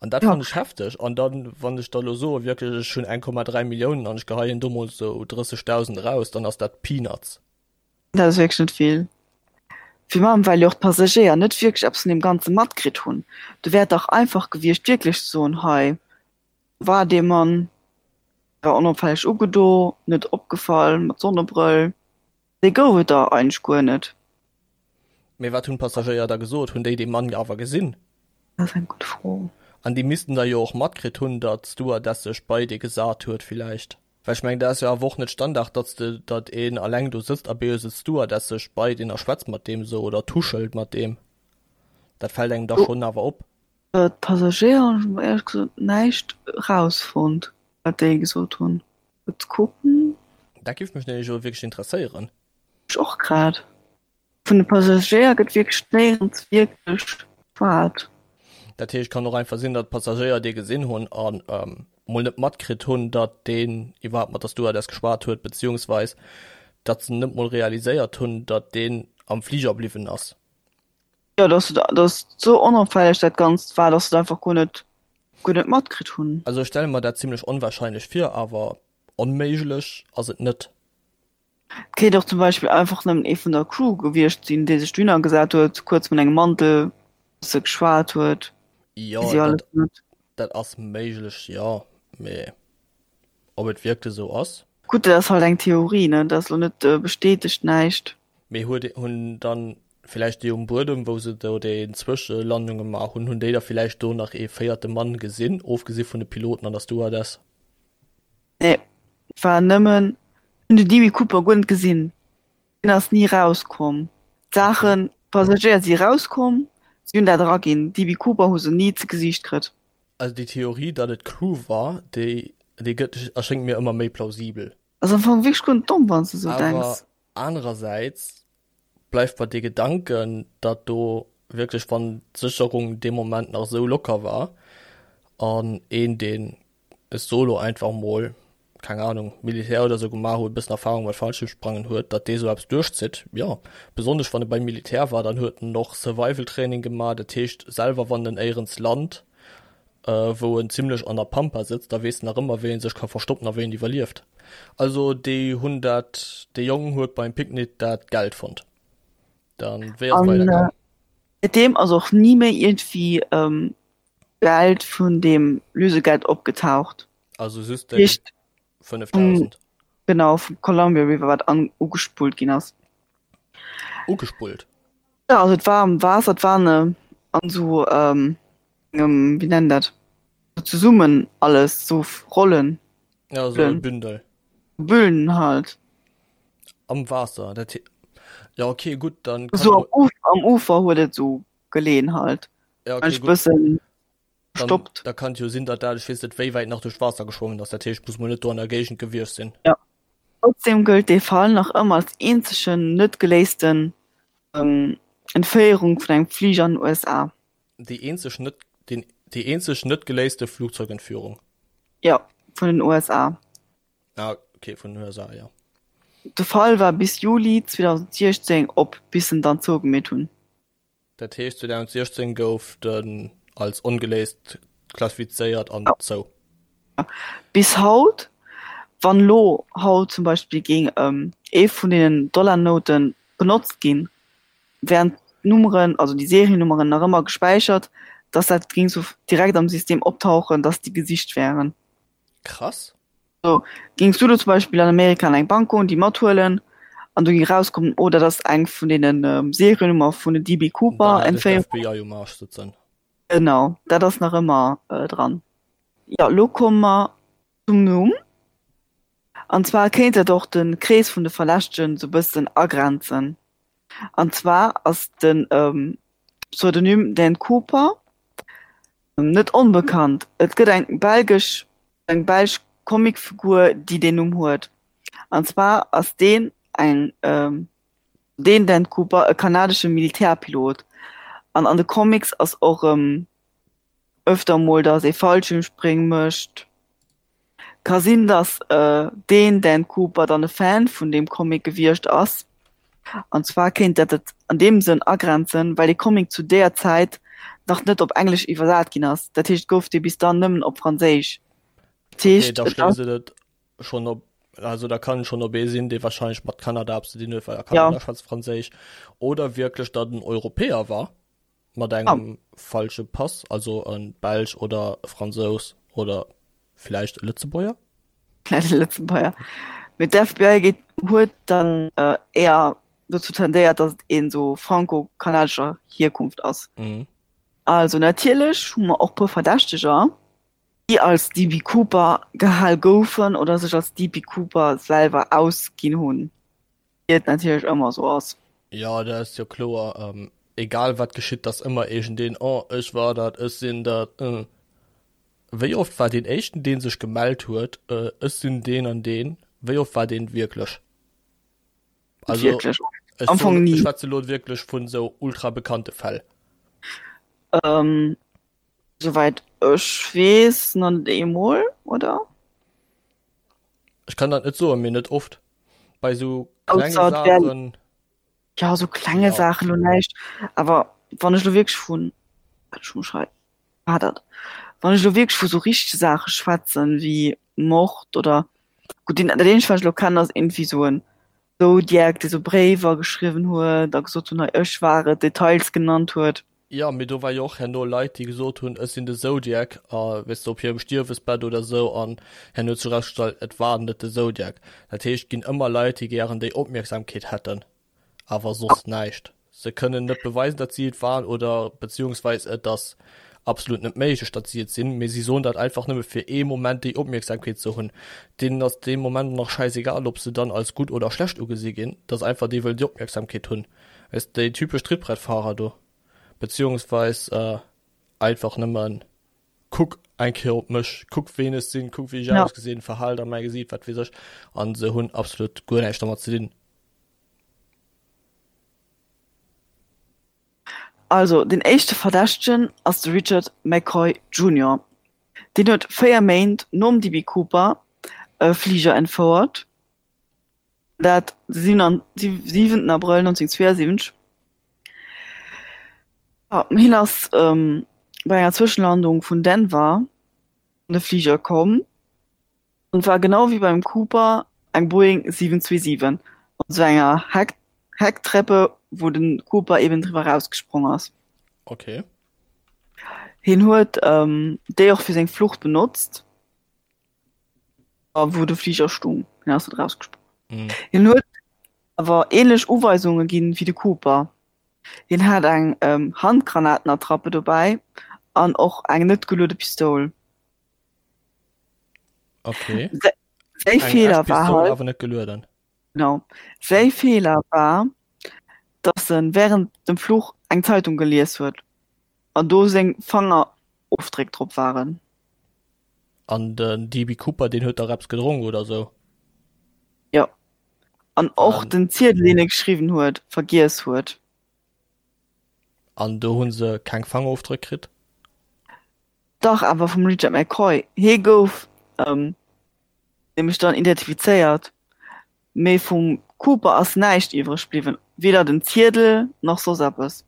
An dat Ja. fannt ech hefteg. An dann, wann ech da lo soe wierklech ech hunn 1,3 Milliounen an ech geheien do mol sou 30.000 eraus, dann ass dat Peanuts. Dat ass wierklech net vill. Virun allem well jo och d'Passagéier net wierklech eppes vun deem Ganze matkritt hunn. Do wär et dach einfach gewiescht wierklech ze soen, hei war dee Mann, war onopfälleg ugedo, net opgefall, mat Sonnebrëll. Déi gouf et der eigentlech guer net. Mee wat hunn d'Passagéier da gesot? Hunn déi dee Mann awer gesinn? Dat ass eng gutt Fro. An déi missten da jo och matkritt hunn, datt d'Stewardess sech bei dee gesat huet villäicht. Well ech mengen, dat ass jo awer och net Standard, datt s de, datt een alleng do sëtzt a bee sëtzt d'Stewardess sech bei deen a schwätzt mat deem esou oder tuschelt mat deem. Dat fält engem da schonn awer op. D'Passagéier hunn ech mol éierlech gesot näischt erausfonnt, wat déi gesot hunn. Kuerz kucken. Dat géif mech nämlech elo wierklech interesséieren. Mech och grad. Vun de Passagéier gëtt wierklech néierens wierklech geschwat. Dat heescht, kann och einfach sinn, datt d'Passagéier dee gesinn hunn a mol net matkritt hunn, datt deen iwwerhaapt mat der Stewardess geschwat huet, beziehungsweis datt se net mol realiséiert hunn, datt deen am Fliger bliwwen ass. Jo, dass dass sou onopfälleg dat Ganzt war, dass se et einfach guer net guer net matkritt hunn. Also ech stelle mer dat zimlech onwahrscheinlech vir, awer onméiglech ass et net. Et kéint och zum Beispill einfach nëmmen ee vun der Crew gewiescht sinn, dee sech dohinner gesat huet, kuerz mat engem Mantel bësse geschwat huet. Jo, Weess ech alles dat net. dat ass méiglech, jo, mee ob et wierklech esou ass? Gutt, dat ass halt eng Theorie, ne, dat ass lo net bestätegt näischt. Mee huet hunn dann villäicht déi um Buedem, wou se do déi Zwëschelandung gemaach hunn, hunn déi da villäicht do nach ee véierte Mann gesinn, ofgesi vun de Piloten an der Stewardess? Nee, et war nëmmen, hunn de DB Cooper guer net gesinn, deen ass ni rauskomm. D'Saachen, d'Passagéier si rauskomm, si hunn dat eraginn, DB Cooper hu se ni ze Gesiicht kritt. Also déi Theorie, datt et d'Crew war, déi déi gëtt erschéngt mir ëmmer méi plausibel. Ass am Fong wierklech guer net domm, wann s de sou Awer denks. anerersäits bleift mer dee Gedanken, datt do wierklech, wann d'Sécherung dee Moment nach esou locker war an een, deen e Solo einfach mol, keng Ahnung, Militär oder sou gemaach huet, e bëssen Erfahrung mat Fallschirmsprangen huet, datt dee sou eppes duerchzitt, jo. Besonnesch wann e beim Militär war, dann huet en och Survival-Training gemaach, dat heescht selwer wann en éierens lant. wou en zimlech an der Pampa sëtzt, da weess en nach ëmmer wéi en sech ka verstoppen a wéi en iwwerlieft. Also déi hunn dat, dee Jong huet beim Picknick dat Geld fonnt. Dann wéi ass et An weidergaang? säitdeem ass och ni méi iergendwéi Geld vun deem Lösegeld opgetaucht. Also just déi Heescht vum, 5.000. genau, vum Columbia River, wat an ugespullt ginn ass. Ugespullt? Jo, also et war am Waasser, et war an esou engem, wéi nennt dat, sou zesummen alles, sou Rollen. Ja, sou e Bündel. Büllen halt. Am Waasser, dat he, jo okay, gutt, dann kann. Sou am am Ufer huet et sou geleeën halt. Ja, okay, gutt. Bëssen Dann, gestoppt. da kann et jo sinn, datt dat, ech weess net wéi wäit nach duerch d'Waasser geschwommen ass, dat heescht, muss mol net do an der Géigend gewiescht sinn. Ja. Trotzdem gëllt dee Fall nach ëmmer als eenzegen net geléisten Entféierung vun engem Fliger an den USA. Déi eenzeg net, den, déi eenzeg net geléiste Flugzeugentführung. Jo, vun den USA. Ah, okay, vun den USA, jo. De Fall war bis Juli 2016 op, bis en dann zougemeet hunn. Dat heescht 2016 gouf den als ongeléist klassifizéiert an zou. Bis haut, wann elo haut zum Beispill géing ee vun deenen Dollarnoute benotzt ginn, wären d'Nummeren, also déi Seriennummeren nach ëmmer gespäichert, dass dat géing sou direkt am System optauchen, dass déi gesicht wären. Krass. So, géings du lo zum Beispill an Amerika an eng Bank goen, déi mathuelen, an do géing erauskommen, oh, dat ass eng vun deenen Seriennummer vun den DB Cooper Dann hätt ech Entféierungen. d'FBI um Arsch sëtzen. Genau, dat ass nach ëmmer dran. Jo, lo komme mer zum Numm. An zwar kéint dat och de Krees vun de Verdächtegen sou bëssen agrenzen. An zwar ass de Pseudonym Dan Cooper Net onbekannt, et gëtt eng belgesch eng belsch Comicfigur déi deen Numm huet. An zwar ass deen eng deen Dan Cooper e kanadesche Militärpilot an an de Comics ass och erëm ëfter mol datt ee Fallschiermspréng mécht. Ka sinn, datt deen Dan Cooper dann e Fan vun deem Comic gewiescht ass. An zwar kéint dat et an deem Sënn agrenzen, well dee Comic zu deeër Zäit nach net op Englesch iwwersat ginn ass. Dat heescht, et gouf dee bis dann nëmmen op Franséisch. Dat heescht, okay, da schléisst et et schonn op, also da kann et schonn op ee sinn, dee warscheinlech mat Kanada eppes ze dinn huet, well a Kanada ja. schwätzt Franséisch, oder wierklech datt en Europäer war. Mat engem falsche Pass, also e Belsch oder e Fransous oder villäicht e Lëtzebuerger? Vläicht e Lëtzebuerger. Mee d'FBI geet, huet dann éier dozou tendéiert, datt et een esou franco-kanadescher Hierkunft ass. Also natierlech hu mer och puer Verdächteger, déi als DB Cooper gehal goufen oder sech als DB Cooper selwer ausginn hunn. Wéi et natierlech ëmmer esou ass. Jo, dat ass jo kloer. Egal wat geschitt, t'ass ëmmer iergendeen, oh ech war dat, ech sinn dat. Wéi oft war deen éischten deen sech gemellt huet, ech sinn deen an deen, wéi oft war deen et wierklech? Also Wierklech ech am Fong soen, ni. ech schwätze lo wierklech vun esou ultra bekannte Fäll. Souwäit ech weess nach net eemol, oder? Ech kann dat net soen, mee net oft. Bei sou klenge Saachen. Ja, sou klenge Saachen lo näischt. Awer wann ech lo wierklech vun, wat ech muss schreiwen, war dat, wann ech lo wierklech vu sou richtege Saache schwätzen, wéi Mord oder, gutt, deen, dat eenzegt, wat ech lo kennen, ass iergendwéi sou en Zodiac, dee sou Bréiwer geschriwwen huet a gesot hunn, hei ech war et, Details genannt huet. Jo, mee do war jo och herno Leit, déi gesot hunn, ech sinn de Zodiac, a weess de, op hirem Stierwesbett oder esou, an herno huet sech erausgestallt, et war net de Zodiac. Dat heescht, et ginn ëmmer Leit, déi gären déi Opmierksamkeet hätten, awer soss näischt. Se kënnen net beweisen, datt si et waren, oder beziehungsweis et ass absolut net méiglech, datt si et sinn, mee si soen dat einfach nëmme fir ee Moment déi Opmierksamkeet ze hunn. Deenen ass dee Moment nach schäisegal, ob se dann als gutt oder schlecht ugesi ginn, et ass einfach, déi wëllen déi Opmierksamkeet hunn. Weess de, déi typesch Trittbrettfahrer do, beziehungsweis einfach nëmmen, kuck eng Kéier op mech, kuck ween ech sinn, kuck wéi ech Ja. ausgesinn, Verhalt a mäi Gesiit, wat weess ech, an se hunn absolut guer näischt dermat ze dinn. Also, deen éischte Verdächtegen ass de Richard McCoy Junior. Deen huet 4 Méint nom DB Cooper e Fliger entfouert. Dat de 7 Abrëll 1972. Hien ass. bei enger Zwëschenlandung vun Denver an de Fliger komm an war genau wéi beim Cooper eng Boeing 727 mat esou enger Heck Hecktreppe, wou de Cooper eben driwwer erausgesprong ass. Okay. Hien huet déi och fir seng Flucht benotzt. A wou de Fliger stung, hien ass net erausgesprong. Mm. Hien huet awer ähnlech Uweisunge ginn wéi de Cooper. Hien hat eng Handgranatenattrappe dobäi an och eng net geluede Pistoul. Okay. Säi Eng Feeler echt war Pistoul, halt, awer net gelueden. genau, säi Feeler war, dass en während dem Fluch eng Zeitung gelies huet an do seng Fangerofdréck drop waren. An den DB Cooper, deen huet dach eppes gedronk oder sou? Jo. An och An, den Ziedel, deen e geschriwwen huet, vergiess huet. an do hu se keng Fangerofdréck kritt? Dach, awer vum Richard McCoy. Hie gouf nämlech dann identifizéiert, mee vum Cooper ass näischt iwwreg bliwwen, weder den Ziedel nach soss eppes.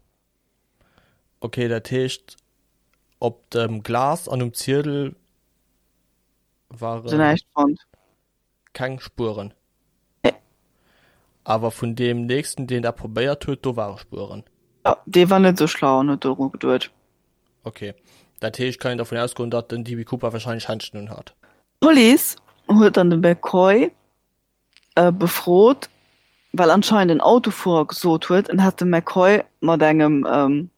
Okay, dat heescht op dem Glas an um Ziedel Se waren näischt fonnt. keng Spueren. Nee. Awer vun deem nächsten, deen dat probéiert huet, do ware Spueren. Jo, dee war net esou schlau an huet doru geduet. Okay, dat heescht, kann een dervun ausgoen, datt den DB Cooper wahrscheinlech Händschen un hat. D'Police huet dann de McCoy befrot, well anscheinend en Autofuerer gesot huet, en hätt de McCoy mat engem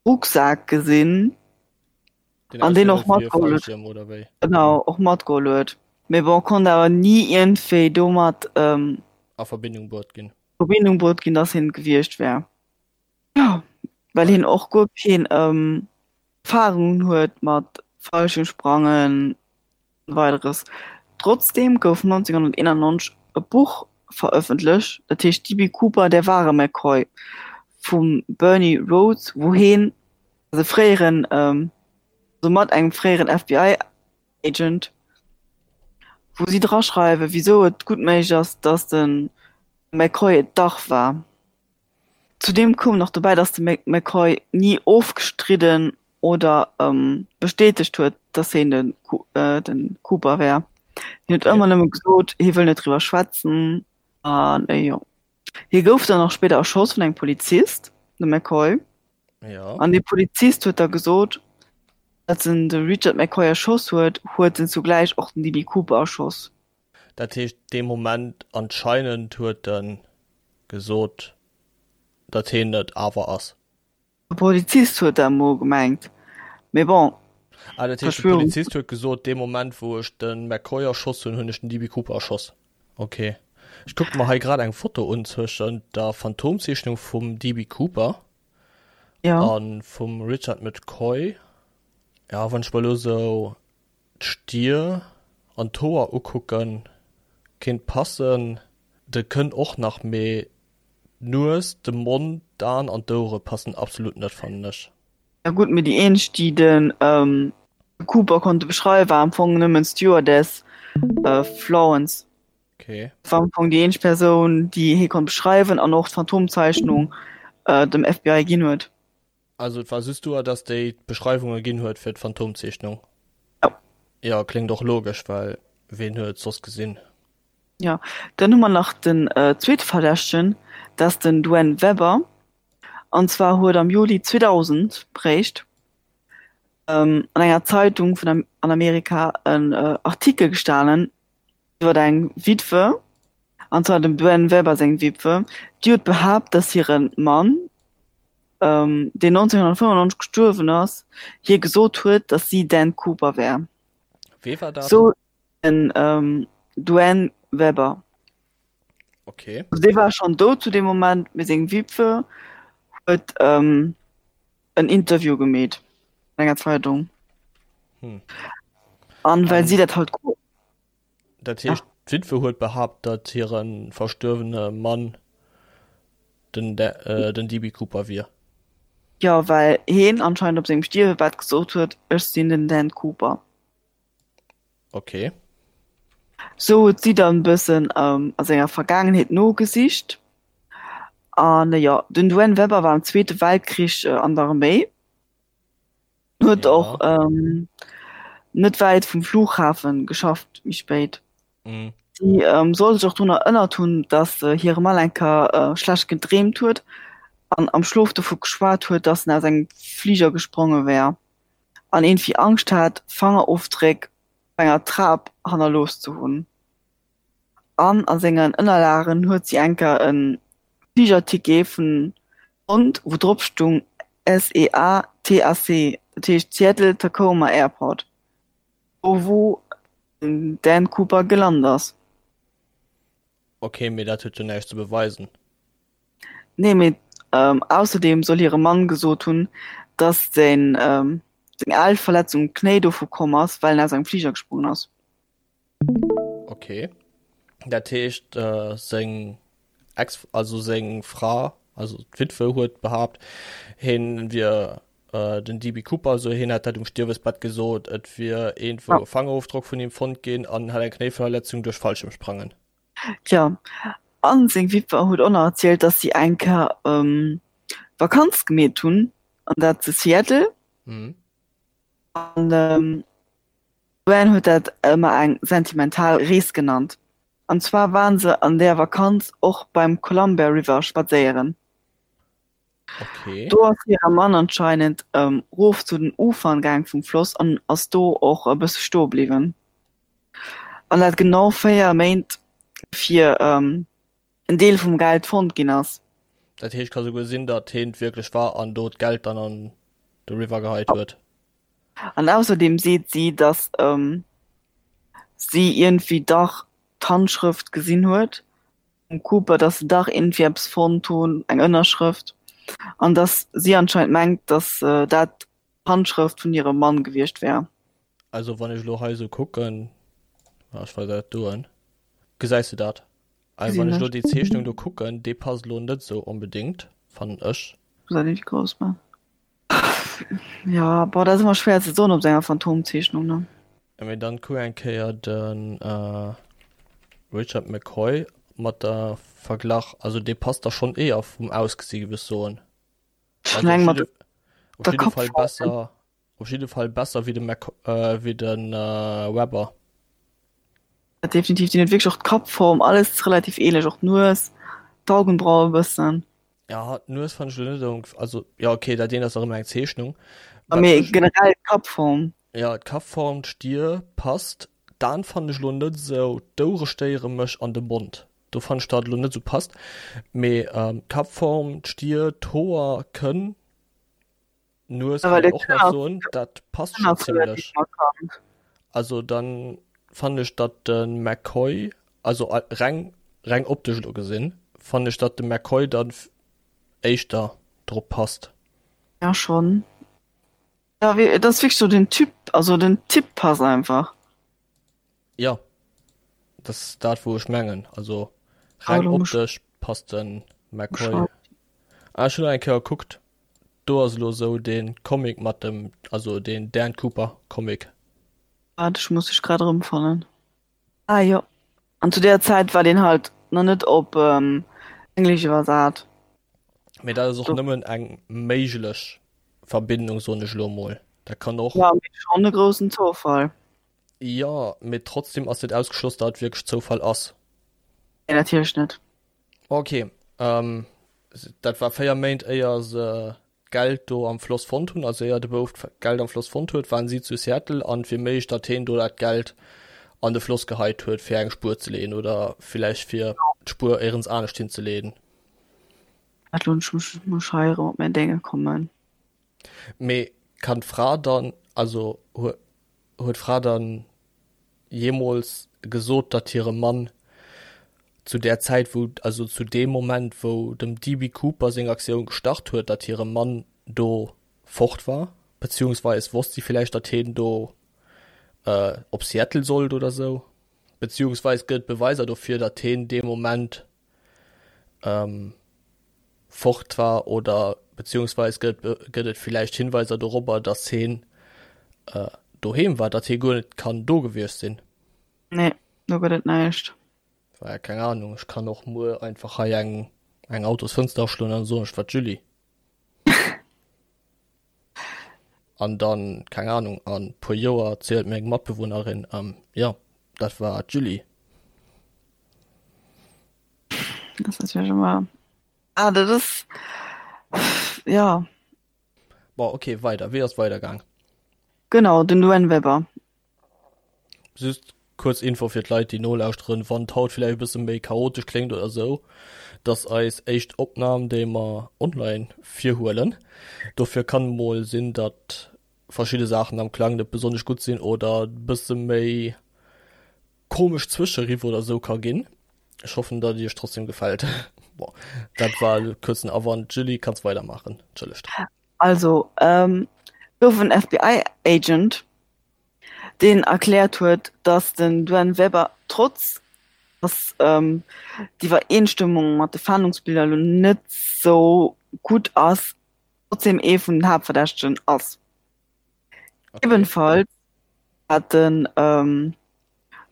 Rucksak gesinn Den an deen och ausgesinn huet wéi e matgeholl huet. Fallschierm oder wéi? Genau, och matgeholl huet. Mee bon, konnt awer ni iergendwéi domat A Verbindung bruet ginn. Verbindung bruet ginn, dass hien et gewiescht wär. Jo, well hien och guer keen Erfahrungen huet mat Fallschiermsprangen an weideres. Trotzdeem gouf 1991 e Buch verëffentlecht, dat heescht DB. Cooper, Der wahre McCoy vum Bernie Rhodes, wou heen, also fréieren, also mat engem fréieren FBI-Agent, wou si draschreiwen, wisou et gutt méiglech ass, dass de McCoy et dach war. Zudeem koum nach dobäi, datt de McCoy ni ofgestridden oder bestätegt huet, datt hien de Cooper wär. Hien huet ëmmer nëmme gesot, hie wëll net driwwer schwätzen. An jo, hie gouf dann och spéider erschoss vun engem Polizist, de McCoy. An dee Polizist huet da gesot, als en de Richard McCoy erschoss huet, huet en zugläich och den DB. Cooper erschoss. Dat heescht, dee Moment anscheinend huet e gesot, datt hien et awer ass. De Polizist huet dat emol gemengt, mee bon. Ah, dat heescht, de Polizist huet gesot, dee Moment wou ech de McCoy erschoss hunn, hunn ech den DB. Cooper erschoss. Ok. Ech kucke mer hei grad eng Foto un zwëschent der Phantomzeechnung vum DB. Cooper a vum Richard McCoy. Ja, wann ech mer elo esou D'Stier an d'Hoer ukucken, kéint passen. De kënnt och nach, mee d'Nues, de Mond, d'Aen an d'Ouere passen absolut net fannen ech. Ja gutt, mee déi eenzeg déi de Cooper konnte beschreiwen war am Fong nëmmen d'Stewardess Florence. Okay. Dat war am Fong déi eenzeg Persoun déi hie konnt beschreiwen an och d'Phantomzeichnung dem FBI ginn huet. Also et war just duer, dass déi d'Beschreiwunge ginn huet fir d'Phantomzeechnung? Jo. Jo, kléngt och logesch, well ween huet et soss gesinn? Jo, dann hu mer nach den zweete Verdächtegen, dat ass den Duane Weber. An zwar huet am Juli 2000 réischt an enger Zeitung vun an Amerika en Artikel gestanen iwwer eng Witwe, an zwar dem Duane Weber seng Witwe, déi huet behaapt, dass hire Mann, deen 1995 gestuerwen ass, hir gesot huet, datt si Dan Cooper wär. Wee war dat? Sou den Duane Weber. Okay. Also dee war schonn dout zu deem Moment, mee seng Witwe huet en Interview gemeet an enger Zeitung. Hm. An well si dat halt. Dat heescht, d'Witwe huet behaapt, datt hire verstuerwene Mann den den DB Cooper wier. Jo, well heen anscheinend op sengem Stierwebett gesot huet, Ech sinn den Dan Cooper. Okay. Sou huet si dann e bëssen a senger Vergaangenheet nogesicht. An jo, den Duane Weber war am Zweete Weltkrich an der Arméi. Huet och ähm, net wäit vum Flughafen geschafft méi spéit. Mhm. Si ähm, soll sech och drun erënnert hunn, datt äh, hire Mann eng Kéier äh, schlecht gedreemt huet an am Schlof dovu geschwat huet, datt en aus engem Fliger gespronge wär an iergendwéi Angscht hat, Fangerofdréck op enger Trap hannerlooss ze hunn. An a sengen Ënnerlagen huet si eng Kéier e Fligerticket vun fonnt, wou drop stung SEA TAC, dat heescht Seattle Tacoma Airport, do wou den Dan Cooper gelant ass. Ok, mee dat huet jo näischt ze beweisen. Nee, mee ausserdeem soll hire Mann gesot hunn, datt seng al Verletzung um Knéi dovu komm ass, well en aus engem Fliger gesprongen ass. Ok, dat heescht seng Ex, also seng Fra, also d'Witwe huet behaapt, hien wier den DB Cooper, also hien hätt dat um Stierwesbett gesot, et wier iergendwou e Fangerofdrock vun him fonnt ginn an hätt eng Knéiverletzung duerch Fallschirmsprangen. Tja, an seng Witwer huet och nach erzielt, dass si eng Kéier Vakanz gemeet hunn, an dat zu Seattle. An D'Joanne huet dat ëmmer eng sentimental Rees genannt. An zwar waren se an där Vakanz och beim Columbia River spadséieren. Okay. Do ass hire Mann anscheinend rof zu den Ufern gaang vum Floss an ass do och e bësse stoe bliwwen. An dat genau 4 Méint fir en Deel vum Geld fonnt ginn ass. Dat heescht, ka souguer sinn, datt heen et wierklech war an do d'Geld dann an de River geheit huet. An ausserdeem seet si, datt si iergendwéi dach d'Handschrëft gesinn huet vum Cooper, datt se dach iergendwéi eppes fonnt hunn, eng Ënnerschrëft, an datt si anscheinend mengt, datt dat d'Handschrëft vun hirem Mann gewiescht wär. Also wann ech elo hei esou kucken, ech weisen der dat do un, gesäis de dat? Also wann ech elo déi Zeechnung do kucken, déi passt elo net esou onbedéngt, fannen ech. Muss dat nicht grouss man. Ja, boah, dat ass ëmmer schwéier ze soen op sou enger Phantomzeechnung, ne? Ja, mee dann kuck eng Kéier den Richard McCoy mat der Verglach, also dee passt da schonn éier vum Ausgesi géif ech soen. Ech meng mat Op der jidde Fall Kappform. besser, op jidde Fall besser wéi de Mc, wéi de Webber. Definitiv, deen huet wierklech och d'Kappform, alles relativ ähnlech, och d'Nues, d'Augenbraue e bëssen. Ja, d'Nues fand ech lo net esou, also ja okay, dat eent ass nach ëmmer eng Zeechnung. A mee generell d'Kappform. Ja, d'Kappform, d'Stier passt. D'Aen fand ech lo net esou, d'Ouere stéiere mech an de Mond, do fand ech dat lo net esou passt. Mee d'Kappform, d'Stier, d'Hoer kënn. Nues kann een och nach soen, dat passt schon zimmlech. Also dann fannen ech datt de McCoy, also reng reng optesch elo gesinn, fannen ech datt de McCoy dann éischter drop passt. Ja schon. Ja wéi et ass wierklech sou den Typ, also den Typ passt einfach. Ja dat ass dat wou ech mengen, also reng optesch passt de McCoy. Ah ech hunn nach eng Kéier gekuckt, Do ass elo sou den Comic mat dem, also den Dan Cooper Comic. Waart, ech muss dech grad erëmfannen. Ah jo, an zu där Zäit war deen halt nach net op Englesch iwwersat. Mee dat ass och nëmmen eng méiglech Verbindung, soen ech elo mol. Dat kann och. Jo, mee schonn e groussen Zoufall. Jo, mee trotzdem ass net ausgeschloss, datt et wierklech Zoufall ass. Nee, natierlech net. Ok, dat war 4 Méint éier se d'Geld do am Floss fonnt hunn, also éier de Bouf d'Geld am Floss fonnt huet, waren si zu Seattle an et wier méiglech, datt heen do dat Geld an de Floss geheit huet, fir eng Spuer ze leeën oder villäicht fir d'Spuer éierens anescht hinzeleeën. Wat elo, ech muss hei erëm op mäin Dénge kommen. Mee kann d'Fra dann, also huet d'Fra dann jeemools gesot, datt hire Mann zu där Zäit, wou, also zu deem Moment, wou dem DB. Cooper seng Aktioun gestart huet, datt hire Mann do fort war? Beziehungsweis wosst si villäicht, datt hien do op Seattle sollt oder sou? Beziehungsweis gëtt et Beweiser dofir, datt hien dee Moment fort war oder beziehungsweis gëtt gëtt et villäicht Hinweiser dorobber, datt heen doheem war, datt hie guer net kann do gewiescht sinn. Nee, do gëtt et näischt. Well keng Ahnung, ech kann och muer einfach hei eng eng Autosfënster aschloen an soen, ech war d'Julie. An dann, keng Ahnung, an puer Joer zielt mir eng Matbewunnerin, ähm, jo, dat war d'Julie. Dat ass natierlech ëmmer, ah, dat ass, jo. Bon, okay, weider. Wéi ass weider gaang? Genau, den Duane Weber. Just kuerz Info fir d'Leit, déi nolauschteren, wann d'haut villäicht e bësse méi chaotesch kléngt oder sou, dass eis éischt Opnam, déi mer online virhuelen. Dofir kann mol sinn, datt verschidde Saachen am Klang net besonnesch gutt sinn oder bësse méi komesch Zwëscheriff oder sou ka ginn. Ech hoffen, datt et iech trotzdem gefält. Bon, dat war e kuerzen Awand. Julie, kanns weidermaachen. Entschëllegt. Also, ähm, gouf en FBI-Agent, deen erkläert huet, datt den Duane Weber trotz datt ähm, d'Iwwereenstëmmung mat de Fahndungsbiller elo net sou gutt ass, trotzdem ee vun den Haaptverdächtegen ass. Okay. Ebenfalls hat den ähm,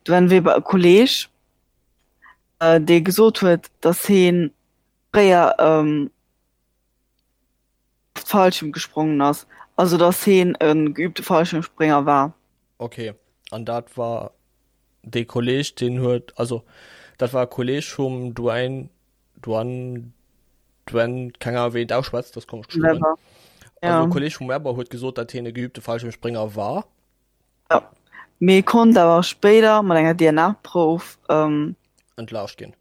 Duane Weber e Kolleeg, äh, dee gesot huet, datt hie fréier ähm, Fallschirm gesprongen ass, also datt heen e geübte Fallschirmsprénger war. Ok, an dat war dee Kolleg, deen huet, also dat war e Kolleg vum Duane, Duane, Duane, keng Ahnung wéi een et ausschwätzt, dat ass komesch geschriwwen. Webber, Also e ja. Kolleg vum Webber huet gesot, datt heen e geübte Fallschirmsprénger war. Ja, mee konnt awer spéider mat enger DNA-Prouf ähm, Entlaascht ginn.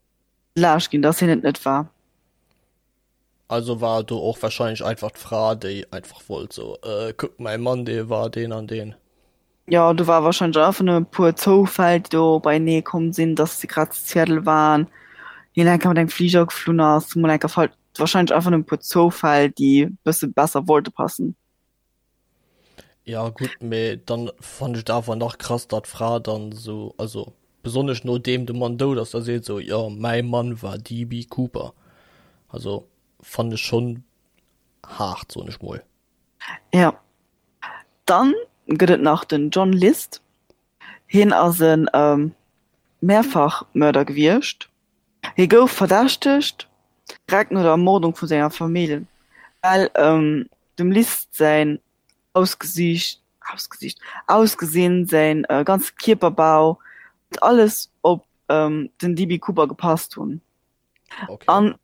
entlaascht ginn, datt hien et net war. Also war do och wahrscheinlech einfach d'Fra, déi einfach wollt so, äh, kuck, mäi Mann, dee war deen an deen. Jo, do war wahrscheinlech einfach nëmme e puer Zoufäll, déi do beienee komm sinn, dass se grad zu Seattle waren, hien eng Kéier mat engem Fliger geflunn ass, mol eng Kéier fal-, wahrscheinlech einfach nëmme e puer Zoufäll, déi e bësse besser wollte passen. Ja gutt, mee dann fannt ech et awer nach krass, datt d'Fra dann esou, also besonnesch nodeem de Mann dout ass, da seet esou, jo mäi Mann war DB Cooper. Also fannt ech schonn haart, soen ech mol. Ja. Dann gëtt et nach den John List. Hien ass e Mehrfachmörder gewiescht. Hie gouf verdächtegt direkt no der Ermordung vu senger Famill, well dem List säin Ausgesiicht, Ausgesiicht, Ausgesinn, säin ganze Kierperbau, huet alles op den DB. Cooper gepasst hunn. Okay. An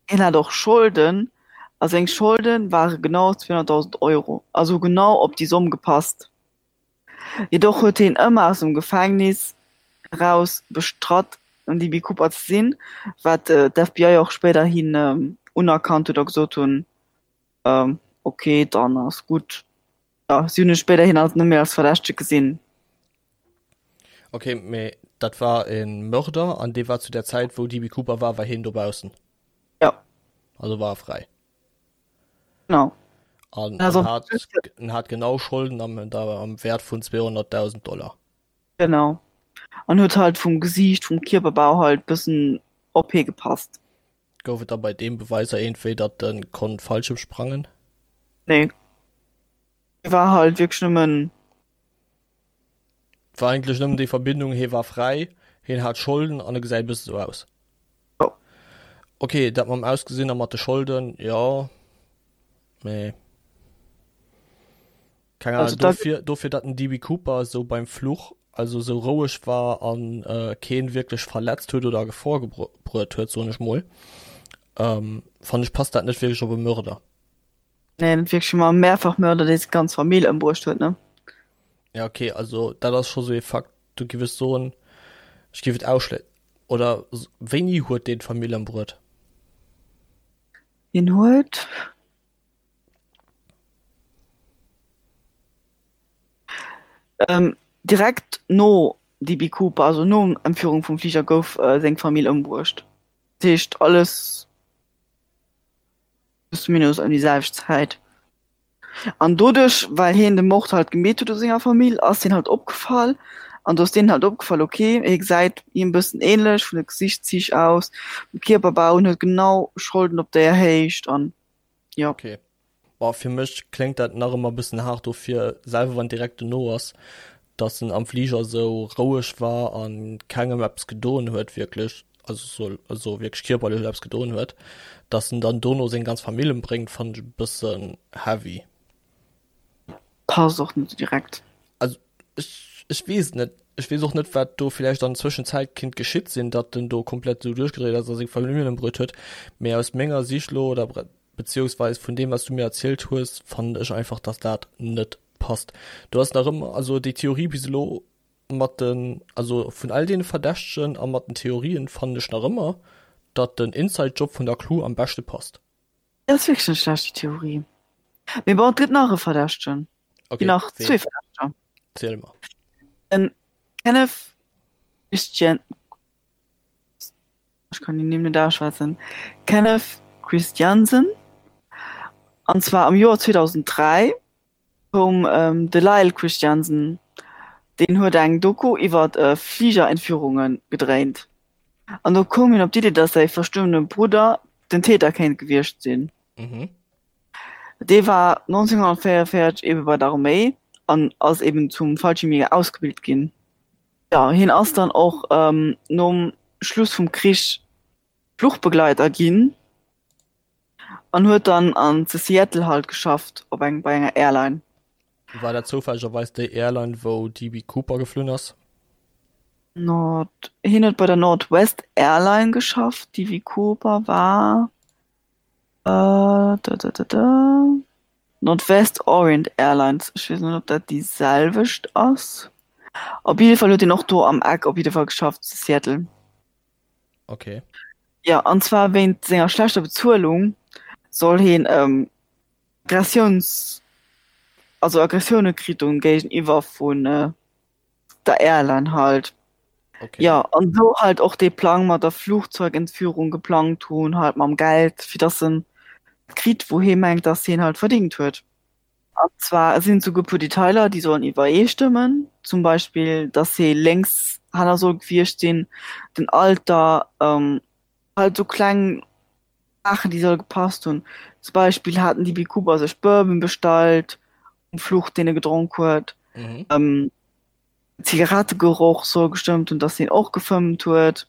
hien hat och Scholden, a seng Scholde ware genau 200.000 Euro, also genau op déi Somm gepasst. Jedoch huet hien ëmmer aus dem Gefängnis eraus bestratt, en DB Cooper ze sinn, wat d'FBI och spéiderhin unerkannt huet a gesot hunn, ok, dann ass gutt. Jo, si hunn e spéiderhin alt net méi als Verdächtege gesinn. Ok, mee dat war e Mörder an dee war zu der Zäit, wou DB Cooper war, war hien dobaussen? Jo. Also war e fräi? Genau. An Also, en hat, en hat genau Scholden am, am Wäert vun 200.000 Dollar. Genau. An huet halt vum Gesiicht, vum Kierperbau halt bëssen op hie gepasst. Gouf et da bei deem Beweiser iergendwéi, datt e konnt Fallschirm sprangen? Nee. War halt wierklech nëmmen. War eigentlech nëmmen déi Verbindung, hie war fräi, hien hat Scholden an e gesäit e bësse sou aus. Jo. Ok, dat mam Ausgesinn a mat de Scholden, jo, mee keng Ahnung, Also da. dofir, dofir datt den DB Cooper esou beim Fluch, also esou roueg war an keen wierklech verletzt huet oder a Gefor gebruet huet, soen ech mol, fannen ech passt dat net wierklech op e Mörder. Nee, net wierklech, ma Mehrfachmörder, dee seng ganz Famill ëmbruecht huet, ne? Ja, okay, also dat ass scho sou ee Fakt, do giff ech soen, ech giff et ausschlé-, oder wéini huet deen d'Famill ëmbruet? Hien huet. Ähm, direkt no DB Cooper, also no Entführung vum Fliger, gouf seng Famill ëmbruecht. Dat heescht alles. plus minus ëm déi selwecht Zäit. An doduerch, well hien de Mord halt gemeet huet u senger Famill, ass hien halt opgefall. An do ass deenen halt opgefall, okay, hie gesäit him e bëssen ähnlech vun de Gesichtszich aus, vum Kierperbau, en huet genau Scholden op där Héicht an jo. Okay. Boah, fir mech kléngt dat nach ëmmer e bëssen haart dofir, selwer wann direkt dono ass, dass en am Fliger esou roueg war an kengem eppes gedoen huet wierklech, also soll also wierklech kierperlech eppes gedoen huet, dass en dann dono seng ganz Famill embréngt, fannen ech e bëssen heavy. Passt och net direkt. Also ech, ech weess et net. Ech weess och net, wat do villäicht an Zwëschenzäit kinnt geschitt sinn, datt en do komplett esou duerchgedréit ass a seng Familljen ëmbruet huet. Mee aus menger Sicht elo, oder beziehungsweis vun deem, wat s du mir erzielt hues, fannen ech einfach, datt dat net passt. Do ass nach ëmmer, also déi Theorie bis elo mat den, also vun all deene Verdächtegen a mat den Theorien fannen ech nach ëmmer, datt den Inside-Job vun der Crew am beschte passt. Dat ass wierklech net schlecht, déi Theorie. Mee bon, et gëtt nach e Verdächtegen. Okay, Ginn nach ween? zwee Verdächteger. Ziel mer. Den Kenneth Christian, ech kann déi Nimm net ausschwätzen, Kenneth Christiansen. An zwar am Joer 2003 koum de Lyle Christiansen, deen huet eng Doku iwwer Fligerentführunge gedréint. An do koum hien op d'Iddi, datt säi verstuerwene Brudder den Täter kéint gewiescht sinn. Dee war 1944 ebe bei der Arméi an ass eben zum Fallschiermjäger ausgebilt ginn. Jo, hien ass dann och nom Schluss vum Krich Fluchbegleiter ginn. An huet dann an zu Seattle halt geschafft op eng bei enger Airline. War dat zoufällegerweis déi Airline wou DB Cooper geflunn ass? Nord, hien huet bei der Northwest Airline geschafft, DB Cooper war da da da da Northwest Orient Airlines, ech weess net ob dat déi selwecht ass. Op jidde Fall huet hien och do am Eck op jidde Fall geschafft zu Seattle. Okay. Ja, an zwar wéint senger schlechter Bezuelung soll heen ähm, Aggressiouns, also Aggressioune kritt hunn géigeniwwer vun äh, der Airline halt. Okay. Ja, an sou halt och dee Plang mat der Flugzeugentführung geplangt hunn, halt mam Geld, fir dass en kritt, wou hee mengt, dass heen halt verdingt huet. An zwar sinn et souguer puer Detailer, déi sollen iwwereestëmmen, zum Beispill, dass hie Lénkshänner soll gewiescht sinn, den Alter, halt esou kleng Saachen, déi solle gepasst hunn. Zum Beispill haten DB Cooper sech Bourbon bestallt um Fluch, deen e gedronk huet. Zigarettegeroch soll gestëmmt hunn, dass hien och gefëmmt huet.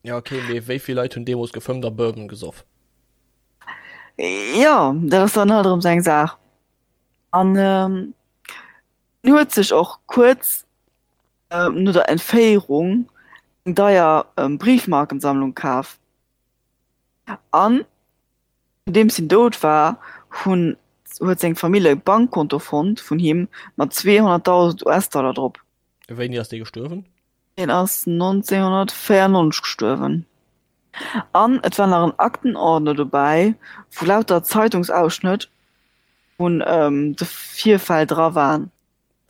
Ja okay, mee wéi vill Leit hunn deemools gefëmmt a Bourbon gesoff? Jo, dat ass dann halt erëm sou eng Saach. An hien huet sech och kuerz no der Entféierung eng deier Briefmarkensammlung kaf. An nodeems hien dout war, hunn huet seng Famill e Bankkonto fonnt vun him mat 200.000 US-Dollar drop. Wéini ass dee gestuerwen? Hien ass 1994 gestuerwen. An et war nach en Aktenordner dobäi, wou lauter Zeitungsausschnëtt vun de Virfäll dra waren.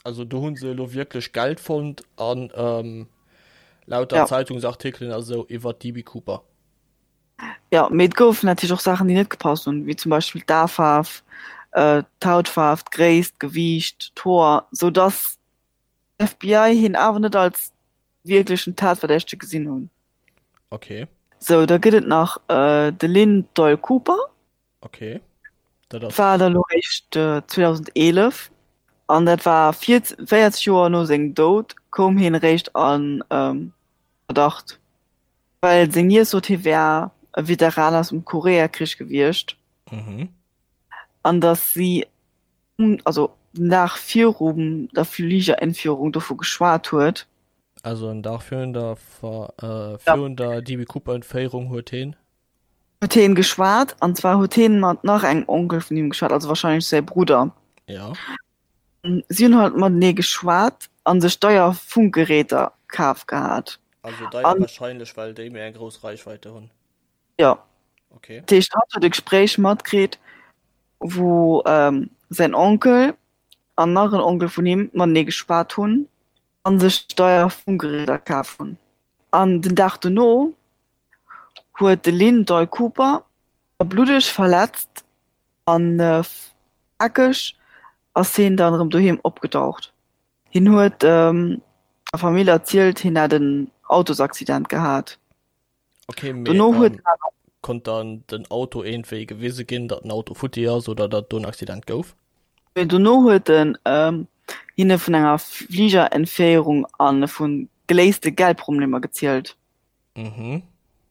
Also do hu se elo wierklech Geld fonnt an lauter Zeitungsartikelen a sou iwwer d'DB Cooper. Jo, mee et goufen natierlech och Saachen, déi net gepasst hunn, wéi zum Beispill d'Aefaarf, d'Hautfaarf, d'Gréisst, d'Gewiicht, d'Hoer, sou dass FBI hien awer net als wierklechen Tatverdächtege gesinn hunn. Okay. Sou, da gëtt et nach de Lynn Doyle Cooper. Okay. Dat ass. War da lo réischt 2011 an dat war 40 Joer no sengem Doud koum hien réischt a Verdacht, well seng Niess sot hie wär e Veteran aus dem Koreakrich gewiescht an datt si also den Dag virum der Fligerentführung dovu geschwat huet. Also en Dag virun der virun der DB Cooper Entféierung huet heen. Huet heen geschwat an zwar huet heen mat nach engem Onkel vun him geschwat, also wahrscheinlech säi Brudder. Ja. Si hunn halt matenee geschwat an sech deier Funkgeräter kaf gehat. Also deier wahrscheinlech well déi méi eng grouss Reichweite hunn. Jo. Okay. Dat heescht, hatt huet e Gespréich matkritt, wou säin Onkel an nach en Onkel vun him matenee geschwat hunn a sech deier Funkgeräter kaf hunn. An den Dag dono huet de Lynn Doyle Cooper bluddeg verletzt an plakeg ass hien dann erëm doheem opgedaucht. Hien huet der Famill erzielt, hien hätt en Autosaccident gehat. Okay, mee, Dono huet ähm, konnt dann den Auto iergendwéi gewise ginn, datt den Auto futti ass oder datt do en Accident gouf? Mee dono huet en ähm, hinne vun enger Fligerentféierung a vu geléiste Geldproblemer gezielt. Mhm.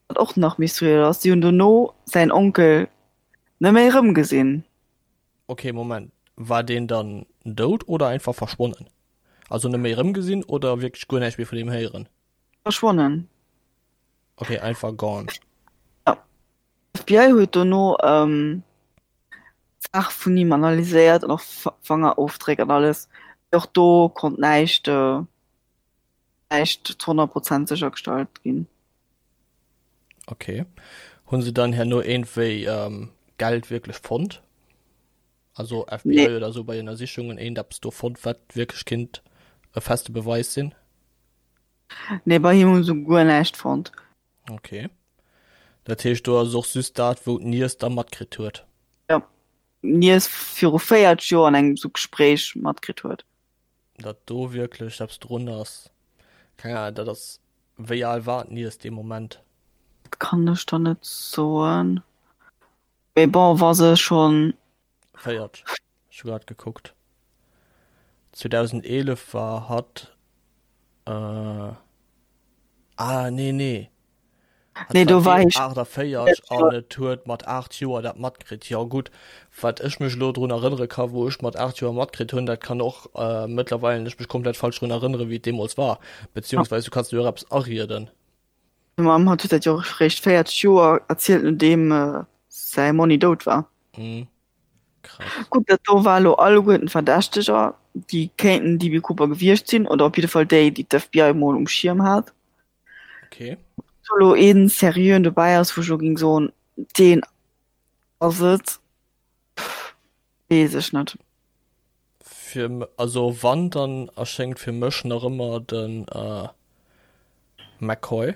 Wat och nach mysteriös ass, si hunn dono säin Onkel net méi erëmgesinn. Okay, Moment. War deen dann dout oder einfach verschwonnen? Also net méi erëmgesinn oder wierklech guer näischt méi vun him héieren? Verschwonnen. Okay, einfach gone. Ja. FBI huet dono ähm, d'Saach vun him analyséiert an och Fangerofdréck an alles. Och do konnt näischt äh, näischt zu 100 Prozent séchergestallt ginn. Okay. Hunn se dann herno iergendwéi ähm, Geld wierklech fonnt? Also FBI nee. oder so bei Ënnersichungen eent eppes do fonnt, wat wierklech kinnt e feste Beweis sinn? Nee, bei him hunn se guer näischt fonnt. Okay. Dat heescht do ass och just dat, wou d'Niess da matkritt huet? Ja, d'Niess viru 40 Joer an engem sou Gespréich matkritt huet. Datt do wierklech eppes drun ass, keng Ahnung, dat ass, wéi al war d'Niess dee Moment? Dat kann ech der net soen. Mee bon, wa se schonn. 40, ech hu grad gekuckt. 2011 war hatt, äh, ah nee, nee. Hatt Nee, do war hie 48 an et huet mat 8 Joer dat matkritt. Jo gutt, wat ech mech elo drun erënnere ka wou ech mat 8 Joer matkritt hunn, dat kann och äh, mëttlerweil ech mech komplett falsch drun erënnere wéi et deemools war. Beziehungsweise du kanns dir och eppes arieden. Meng Mamm hat huet dat jo och eréischt 40 Joer erzielt nodeem säi Monni dout war. Mhm. Krass. Gutt, dat do war elo alleguerten Verdächteger, déi kéinten DB Cooper gewiescht sinn, oder op jidde Fall déi, déi d'FBI mol um Schierm hat. Okay. Ob do elo een seriöen dobäi ass, wou ech elo géing soen, deen ass et, weess ech net. Fir, also wann, dann erschéngt fir mech nach ëmmer de McCoy.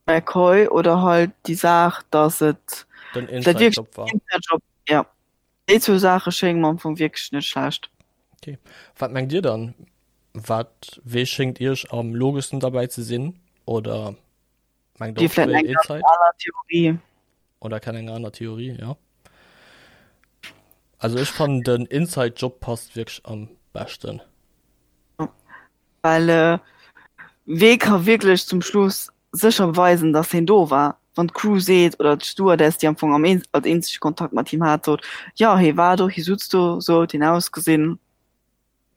McCoy oder halt déi Saach, dass et Den Inside Job war. Inside Job, ja. Déi zwou Saache schénge mer am Fong wierklech net schlecht. Okay. Wat mengt Dir dann? Wat, wee schéngt Iech am logeschsten derbäi ze sinn? Oder mengt Dir och vläit wéi eng ganz Inside? aner Theorie. Oder kennt eng aner Theorie, ja. Also ech fannen den Inside Job passt wierklech am beschten. Well äh, wee ka wierklech zum Schluss sécher beweisen, dass hien do war? Wann d'Crew seet, oder d'Stewardess, déi am Fong am een, als eenzege Kontakt mat him hat, sot, jo, hie war do, hie sutz do, sou huet hien ausgesinn,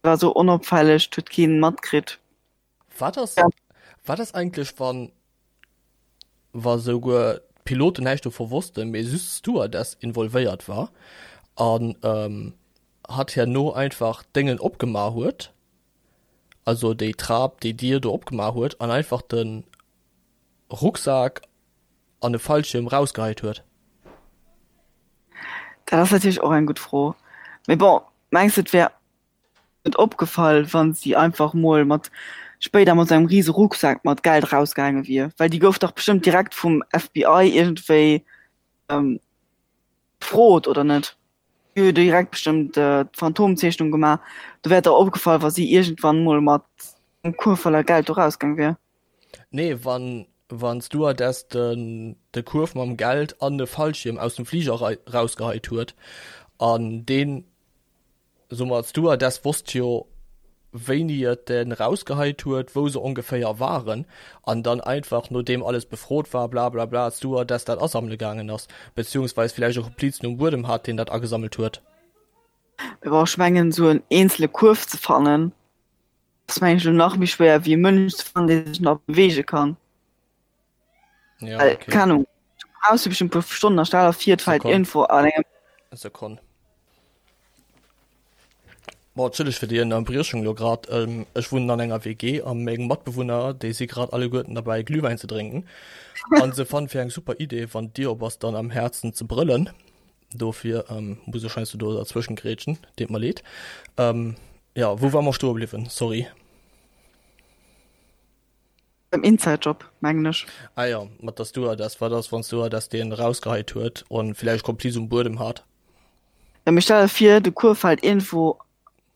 war sou onopfälleg, 't huet keen matkritt. Wat ass, wat ass eigentlech, wann, wa souguer d'Piloten näischt dovu wossten, mee just d'Stewardess involvéiert war an ähm, hatt herno einfach d'Déngen opgemaach huet, also déi Trap, déi Dier do opgemaach huet an einfach de Rucksak an e Fallschierm rausgeheit huet? Dat ass natierlech och eng gutt Fro. Mee bon, mengs de et wär net opgefall, wann si einfach mol mat spéider mat sou engem riese Rucksak mat Geld rausgaange wier? Well déi gouf dach bestëmmt direkt vum FBI iergendwéi befrot, oder net? Déi hu jo direkt bestëmmt d'Phantomzeechnung gemaach. Do wär et dach opgefall, wa si iergendwann mol mat engem Kuerf voller Geld do rausgaang wier. Nee, wann wann d'Stewardess den de Kuerf mam Geld an de Fallschierm aus dem Fliger rausgeheit huet an deen So ma d'Stewardess wosst jo wéini et den rausgeheit huet, wou se ongeféier waren an dann einfach nodeem alles befrot war blablabla d'Stewardess dat asammele gaangen ass, beziehungsweis villäicht e Komplizen um Buedem hat deen dat agesammelt huet. Mee bon, ech mengen esou en eenzele Kuerf ze fannen ass mengen ech elo nach méi schwéier wéi e Mënsch ze fannen dee sech nach beweege kann. Ja, Well, okay. keng Ahnung, du brauchs jo bestimmt e puer Stonnen a stell der vir et fält Sekonn. iergendwou an engem. Sekonn. Bon, entschëlleg fir déi Ënnerbriechung elo grad. Ech wunnen an enger WG a meng Matbewunner, déi si grad alleguerten derbäi Glühwäin ze drénken. An se fannen fir eng super Idee, wann d'Dier op ass, dann am Häerzen ze brëllen. Dofir muss ech heiansdo do derzwëschen grätschen. Deet mer leed. Jo, wou ware mer stoe bliwwen? Sorry. Beim Inside Job, mengen ech. Ah jo, mat der Stewardess. Wat ass, wann d'Stewardess deen erausgeheit huet an villäicht Kompliz um Buedem hat? Ja, mee stell der vir, de Kuerf fält iergendwou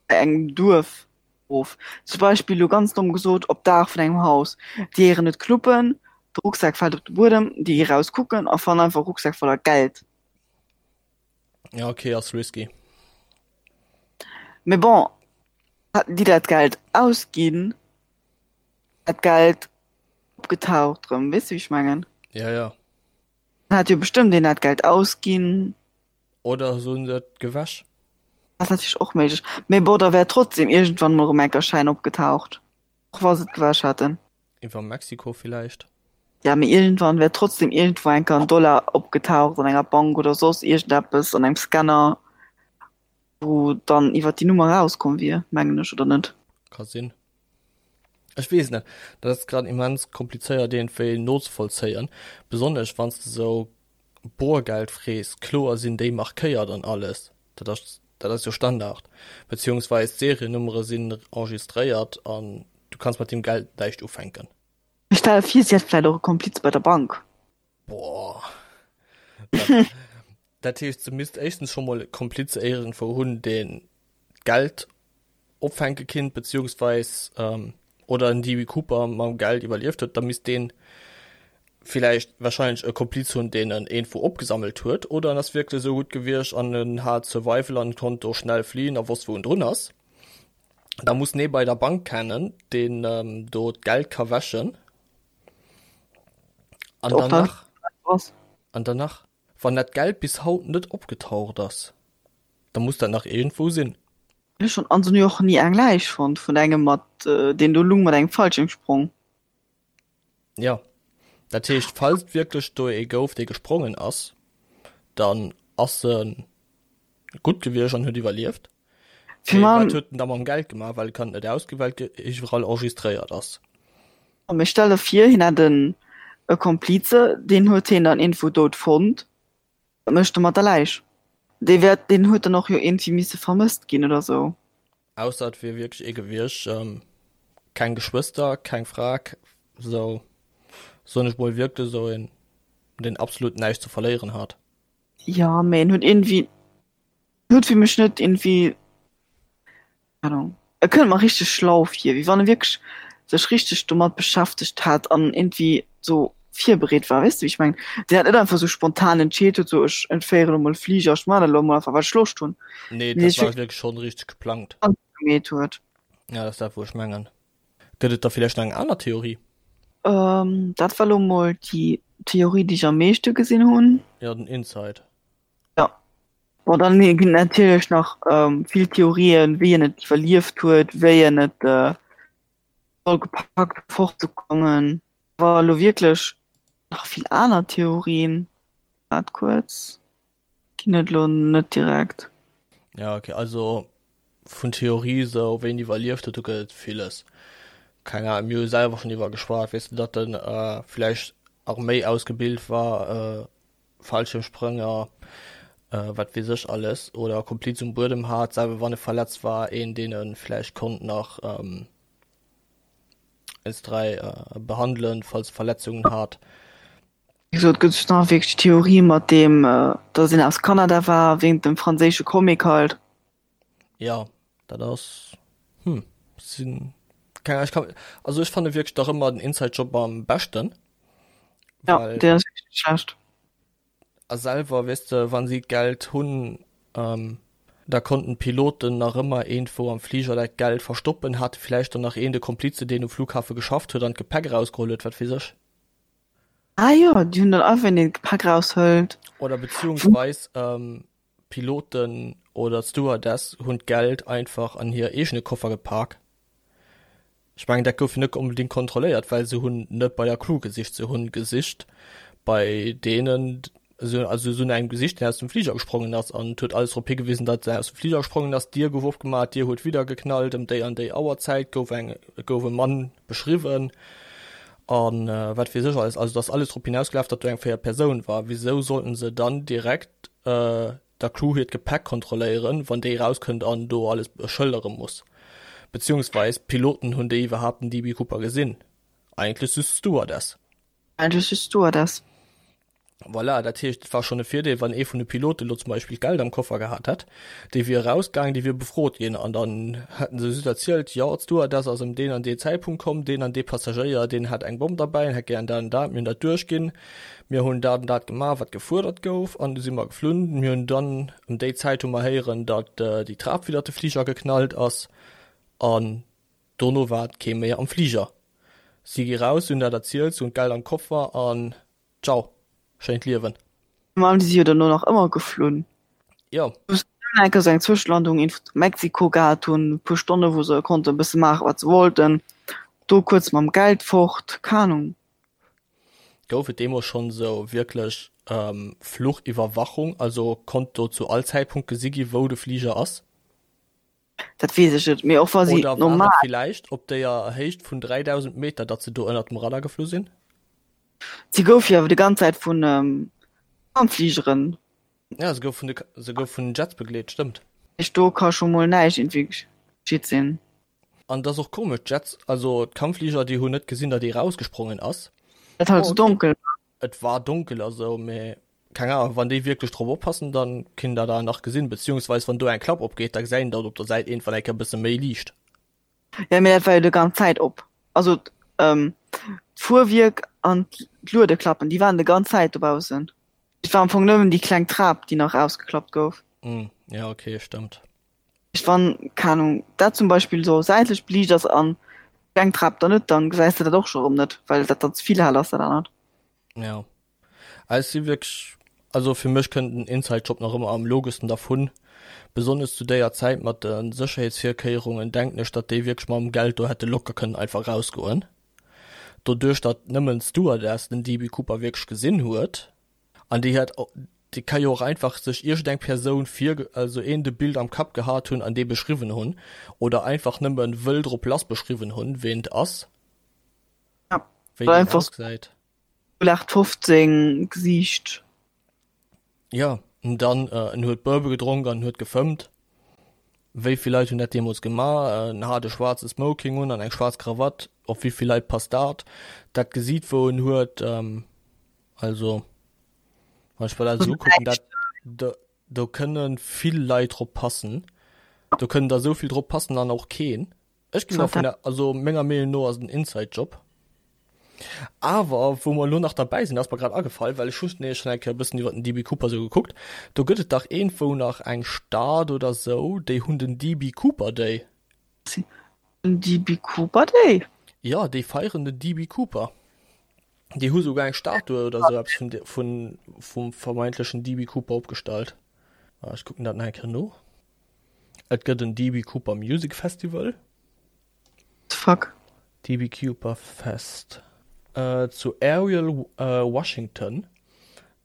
bei engem Duerf of. Zum Beispill, elo ganz domm gesot, op d'Daach vun engem Haus. Déi héieren et knuppen, de Rucksak fält op de Buedem, déi gi raus kucken a fannen einfach e Rucksak voller Geld. Ja, okay, ass risky. Mee bon, hätten déi dat Geld ausginn, wär d'Geld opgetaucht erëm. Weess de, wéi ech mengen? Ja, ja. Dann hat jo bestëmmt een dat Geld ausginn. Oder se hunn et gewäsch. Ass natierlech och méiglech. Mee bon, da wär trotzdem iergendwann mol erëm enk e Schäin opgetaucht. Och wa se et gewäsch hätten. Iwwer Mexiko villäicht? Ja, mee iergendwann wär trotzdem iergendwou enker en Dollar opgetaucht an enger Bank oder soss iergendeppes, an engem Scanner, wou dann iwwer déi Nummer erauskomm wier, mengen ech, oder net? Ka sinn. Ech weess net. Dat ass grad immens komplizéiert iergendwéi nozevollzéien, besonnesch wann s de sou Borgeld frees. Kloer sinn déi markéiert an alles, dat ass dat ass jo Standard, beziehungsweis d'Seriennummere sinn enregistréiert an du kanns mat deem Geld näischt ufänken. Ech stelle vir, si hätt vläit och e Kompliz bei der Bank. Boah. Dat, dat heescht, se misst éischtens scho mol e Kompliz iergendwou hunn, deen d'Geld opfänke kinnt, beziehungsweis ähm, oder en DB Cooper mam Geld iwwerlieft huet, da misst deen villäicht wahrscheinlech e Kompliz hunn, deen en iergendwou opgesammelt huet, oder en ass wierklech esou gutt gewiescht an en hat Survival an konnt do schnell fliehen a wosst wou en drun ass. Da muss en ee bei der Bank kennen, deen ähm, do d'Geld ka wäschen. An dann nach, an dann nach, wann dat Geld bis haut net opgetaucht ass, da muss dat nach iergendwou sinn. Ech hunn an jo och ni eng Läich fonnt vun engem mat deen do lung mat engem Fallschirmsprong. Jo, dat heescht falls et wierklech do ee gouf dee gesprongen ass, dann ass e gutt gewiescht an huet iwwerlieft. Mee wat huet en da mam Geld gemaach, well e kann et net ausginn, well et iwwerall enregistréiert ass. Mee stell der vir hien hätt en e Komplize, deen huet hien dann iergendwou dout fonnt. Wat mécht e mat der Läich? Dee wäert, deen huet dann och jo iergendwéi misse vermësst ginn oder sou. Ausser et wier wierklech ee gewiescht, keng Geschwëster, keng Fra, sou soen ech mol, wierklech sou een, deen absolut näischt ze verléieren hat. Jo, mee en huet iergendwéi, huet fir mech net iergendwéi Ahnung. E kënnt mer richteg schlau vir, wéi wann e wierklech sech richteg domat beschäftegt hätt an iergendwéi sou virbereet war. Weess de wéi ech mengen? Deen dat net einfach sou spontan entscheet huet, sou ech entféieren elo mol e Fliger, ech maachen dat elo mol einfach well ech Loscht hunn. Nee, dat war wierklech schonn richteg geplangt. Gemeet huet. Ja, dat ass dat wou ech mengen. Gëtt et da villäicht nach eng aner Theorie? Dat war elo mol déi Theorie déi ech am meeschte gesinn hunn. Jo, den Inside. Jo. Bon, dann ginn et natierlech nach vill Theorien, wéi en et iwwerlieft huet, wéi en et soll gepackt huet fortzekommen. Awer elo wierklech nach vill aner Theorien, waart kuerz, ginn et elo net direkt. Ja, okay, also vun Theorie sou wéi en iwwerlieft huet, do gëtt et villes. Keng Ahnung, mir hu selwer schonn iwwer geschwat, weess de, datt en vläicht Arméi ausgebilt war, Fallschirmsprénger, wat weess ech alles, oder Kompliz um Buedem hat, selwer wann e verletzt war, een deen e vläicht konnt nach eens 3 behandelen, falls e Verletzungen hat. Wéi gesot, gëtt et nach wierklech d'Theorie mat deem, datt een aus Kanada war, wéint dem franséische Comic halt. Jo, dat ass, hm, sinn keng Ahnung, ech kann, also ech fanne wierklech nach ëmmer den Inside Job am beschten. Ja, well, deen ass wierklech net schlecht. A selwer, weess de, wann si d'Geld hunn, ähm, da konnten d'Piloten nach ëmmer iergendwou am Fliger dat Geld verstoppen, hate villäicht dann nach een de Komplize, deen um Flughafe geschafft huet an d'Gepäck erausgeholl huet, wat weess ech. Ah jo, déi hunn dann einfach een, deen d'Gepäck eraushëlt. Oder beziehungsweis, ähm, D'Piloten oder d'Stewardess hunn d'Geld einfach an hir eegene Koffer gepak. Ech mengen, dat gouf jo net onbedéngt kontrolléiert, well se hunn net bei der Crew gesicht, se hunn gesicht bei deenen, also se hunn engem gesicht, deen aus dem Fliger gesprongen ass an et huet alles drop higewisen, datt en aus dem Fliger gesprongen ass. D'Dier gouf opgemaach, d'Dier huet widder geknallt, ëm déi an déi Auerzäit gouf eng, gouf e Mann beschriwwen an wat weess ech alles. Also et ass alles drop hinausgelaf, datt do eng véiert Persoun war. Wisou sollten se dann direkt der Crew hiert Gepäck kontrolléieren, wann déi erauskënnt an do alles schëldere muss? Beziehungsweis d'Piloten, hunn déi iwwerhaapt den DB Cooper gesinn? Eigentlech just d'Stewardess. Eigentlech just d'Stewardess. Voilà, dat heescht, et war schonn e Virdeel, wann ee vun de Pilote lo zum Beispill Geld am Koffer gehat hätt, dee wier erausgaangen, dee wier befrot ginn an dann hätten se just erzielt, jo, d'Stewardess ass ëm deen an dee Zäitpunkt komm, deen an dee Passagéier, deen hat eng Bomm derbäi an hätt gären dat an dat, mir hunn dat duerchginn, mir hunn dat an dat gemaach, wat gefuerdert gouf an du si mer geflunn. Mir hunn dann ëm déi Zäit hu mer héieren, datt déi Trap widder de Fliger geknallt ass an dono war kee méi am Fliger. Si gi raus, si hunn dat erzielt, si hunn d'Geld am Koffer an Ciao, schéint Liewen. Mä déi si jo dono nach ëmmer geflunn. Jo. Hunn eng Kéier sou eng Zwëschelandung in Mexiko gehat, hunn e puer Stonne wou se konnten e bësse maache wat se wollten, do kuerz mam Geld fort, keng Ahnung. Gouf et deemools schonn sou wierklech Fluchiwwerwachung, also konnt do zu all Zäitpunkt gesi gi wou de Fliger ass? Dat weess ech net, mee och wa si Oder war normal. et villäicht op déier Héicht vun 3000 Meter, datt se do ënnert dem Radar geflu sinn? Si gouf jo awer déi ganz Zäit vun Kampffligeren. Ja, se gouf vun de, se gouf vun den Jets begleet, stëmmt. Heescht, do ka scho mol näischt iergendwéi geschitt sinn. An et ass och komesch, d'Jets, also d'Kampffliger, déi hunn net gesinn, datt ee rausgesprongen ass. Et halt sou donkel war. Et war donkel a sou, mee keng Ahnung, wann déi wierklech drop oppassen, dann kinnt der dat nach gesinn, beziehungsweis wann do eng Klapp opgeet, da gesäit een dat op der Säit iergendwann eng Kéier e bësse méi liicht. Ja, mee dat war jo de ganz Zäit op. Also d'Fuerwierk an d'Luedeklappen, déi waren de ganz Zäit dobaussen. Et war am Fong nëmmen déi kleng Trap, déi nach ausgeklappt gouf. Hm, ja okay, stëmmt. Wann, keng Ahnung, dat zum Beispill sou säitlech beliicht ass an d'kleng Trap dann net, dann gesäis de dat och scho rëm net, well dat dann ze vill hell ass, dat anert. Ja. Ech si wierklech, also fir mech kënnt den Inside Job nach ëmmer am logeschsten dervun. Besonnesch zu déier Zäit mat de Sécherheetsvirkéierungen denken ech, datt déi wierklech mam Geld do hätte locker kënnen einfach rausgoen. Doduerch datt nëmmen d'Stewardess den DB Cooper wierklech gesinn huet, An déi hat, déi ka jo och einfach sech iergendeng Persoun vir, also een de Bild am Kapp gehat hunn an dee beschriwwen hunn oder einfach nëmmen wëll drop lass beschriwwen hunn, ween et ass, Ja, wéi oder deen einfach ausgesäit. 0815 Gesiicht. Jo, an dann, en huet Bourbon gedronk an en huet gefëmmt. Wéi vill Leit hunn dat deemools gemaach? En hat e schwaarze Smoking un an eng schwaarz Krawatt. Op wéi vill Leit passt dat? Dat Gesiit, wou en huet, Also wann ech mer dat esou ukucken, dat do, do kënne vill Leit drop passen. Do kënnen der esou vill drop passen an och keen. Ech ginn dervun, also menger Meenung no ass et en Inside-Job. Awer wou mer elo nach derbäi sinn, ass mer grad agefall, well ech hunn nämlech schonn eng Kéier e bëssen iwwer den DB Cooper esou gekuckt, do gëtt et dach iergendwou nach eng Stad oder esou, déi hunn den DB Cooper Day. Den DB Cooper Day? Jo, déi feieren den DB Cooper. Déi hu souguer eng Statue oder sou eppes vun, vun, vum vermeintlechen DB Cooper opgestallt. Ah, ech kucken dat nach eng Kéier no. Et gëtt en DB Cooper Music Festival. The fuck? DB Cooper Fest. Äh, zu Ariel, äh, Washington.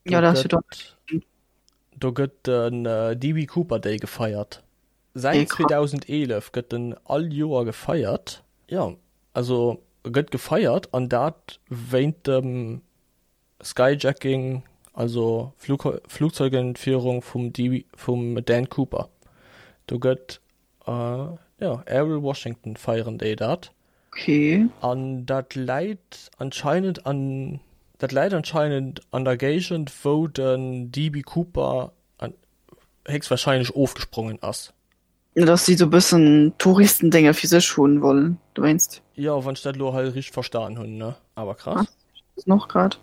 Do ja, dat gëtt, do gëtt den äh, DB Cooper Day gefeiert. Säit 2011 gëtt en all Joer gefeiert. Jo, also e gëtt gefeiert an dat wéint dem Skyjacking, also Flugzeugentfierung vum vum Dan Cooper. Do gëtt, jo, Ariel Washington feieren déi dat. Okay. An dat läit anscheinend an dat läit anscheinend an der Géigend wou den DB Cooper héchstwahrscheinlech ofgesprongen ass. Dass si sou bëssen Touristendénge fir sech hunn wollen dowéinst. Jo, wann ech dat elo hei richteg verstan hunn, ne? Awer krass. Ass och grad.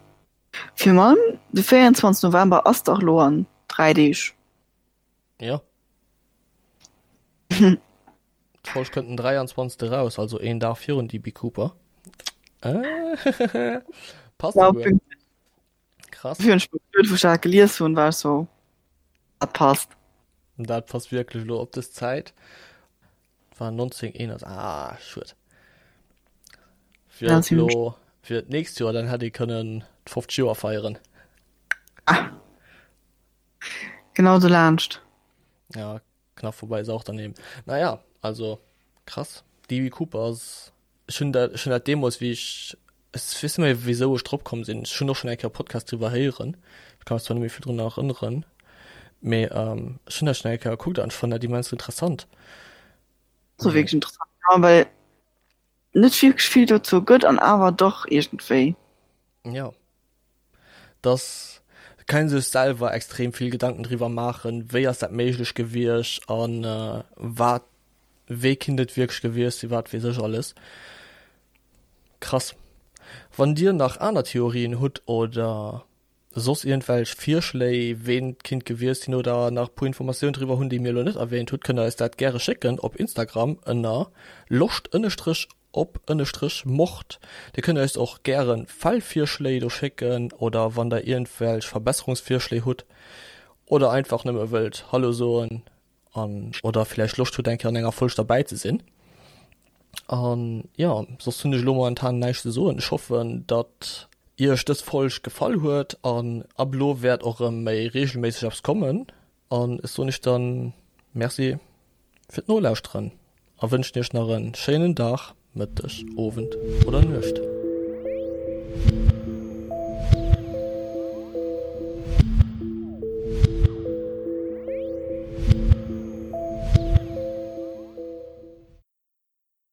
Fir man de 24 November ass dach lo an 3 Deeg. Jo. D'Folg kënnt den 23. Raus, also een Dag virun DB Cooper. Passt Ja, souguer. Krass. Wéi ech wou ech dat gelies hunn, war ech sou, dat passt. Dat passt wierklech elo op dës Zäit. War 1981, ah, schued. Fir et elo fir d'nächst Joer, dann hätt ee kënnen d'50 Joer feieren. Ah. Genau dolaanscht. Ja, Knapp vorbei ist auch daneben. Naja, also krass. DB Cooper ass, ech hunn dat, ech hunn dat deemools wéi ech, ech weess net méi wéisou ech drop komm sinn, ech hunn och schonn eng Kéier e Podcast driwwer héieren, ech ka mech zwar net méi vill drun erënneren, mee ech hunn dat schonn eng Kéier gekuckt an ech fannen dat immens interessant. Ass och wierklech interessant, ja, well net wierklech vill dozou gëtt an awer dach iergendwéi. Ja. Dass kann ee sech selwer extrem vill Gedanken driwwer maachen, wéi ass dat méiglech gewiescht an wat, wee kinnt et wierklech gewiescht sinn, wat weess ech alles. Krass. Wann dir nach aner Theorien hutt oder soss iergendwelch Virschléi, ween et kinnt gewiescht sinn oder nach e puer Informatiounen driwwer hunn, déi mir elo net erwähnt hutt, kënnt der eis dat gäre schécken op Instagram ënner loscht ënnestrech op ënnestrech Mord. Dir kënnt eis och gären Fallvirschléi do schécken oder wann der iergendwelch Verbesserungsvirschléi hutt oder einfach nëmme wëllt Hallo soen. An oder villäicht Loscht hutt eng Kéier an enger Folg derbäi ze sinn. An jo, soss hunn ech elo momentan näischt ze soen. Ech hoffen, datt Iech dës Folg gefall huet an ab elo wäert och erëm méi reegelméisseg eppes kommen. An ech soen iech dann Merci fir d'Nolauschteren a wënschen iech nach en schéinen Dag, Mëtteg, Owend oder Nuecht.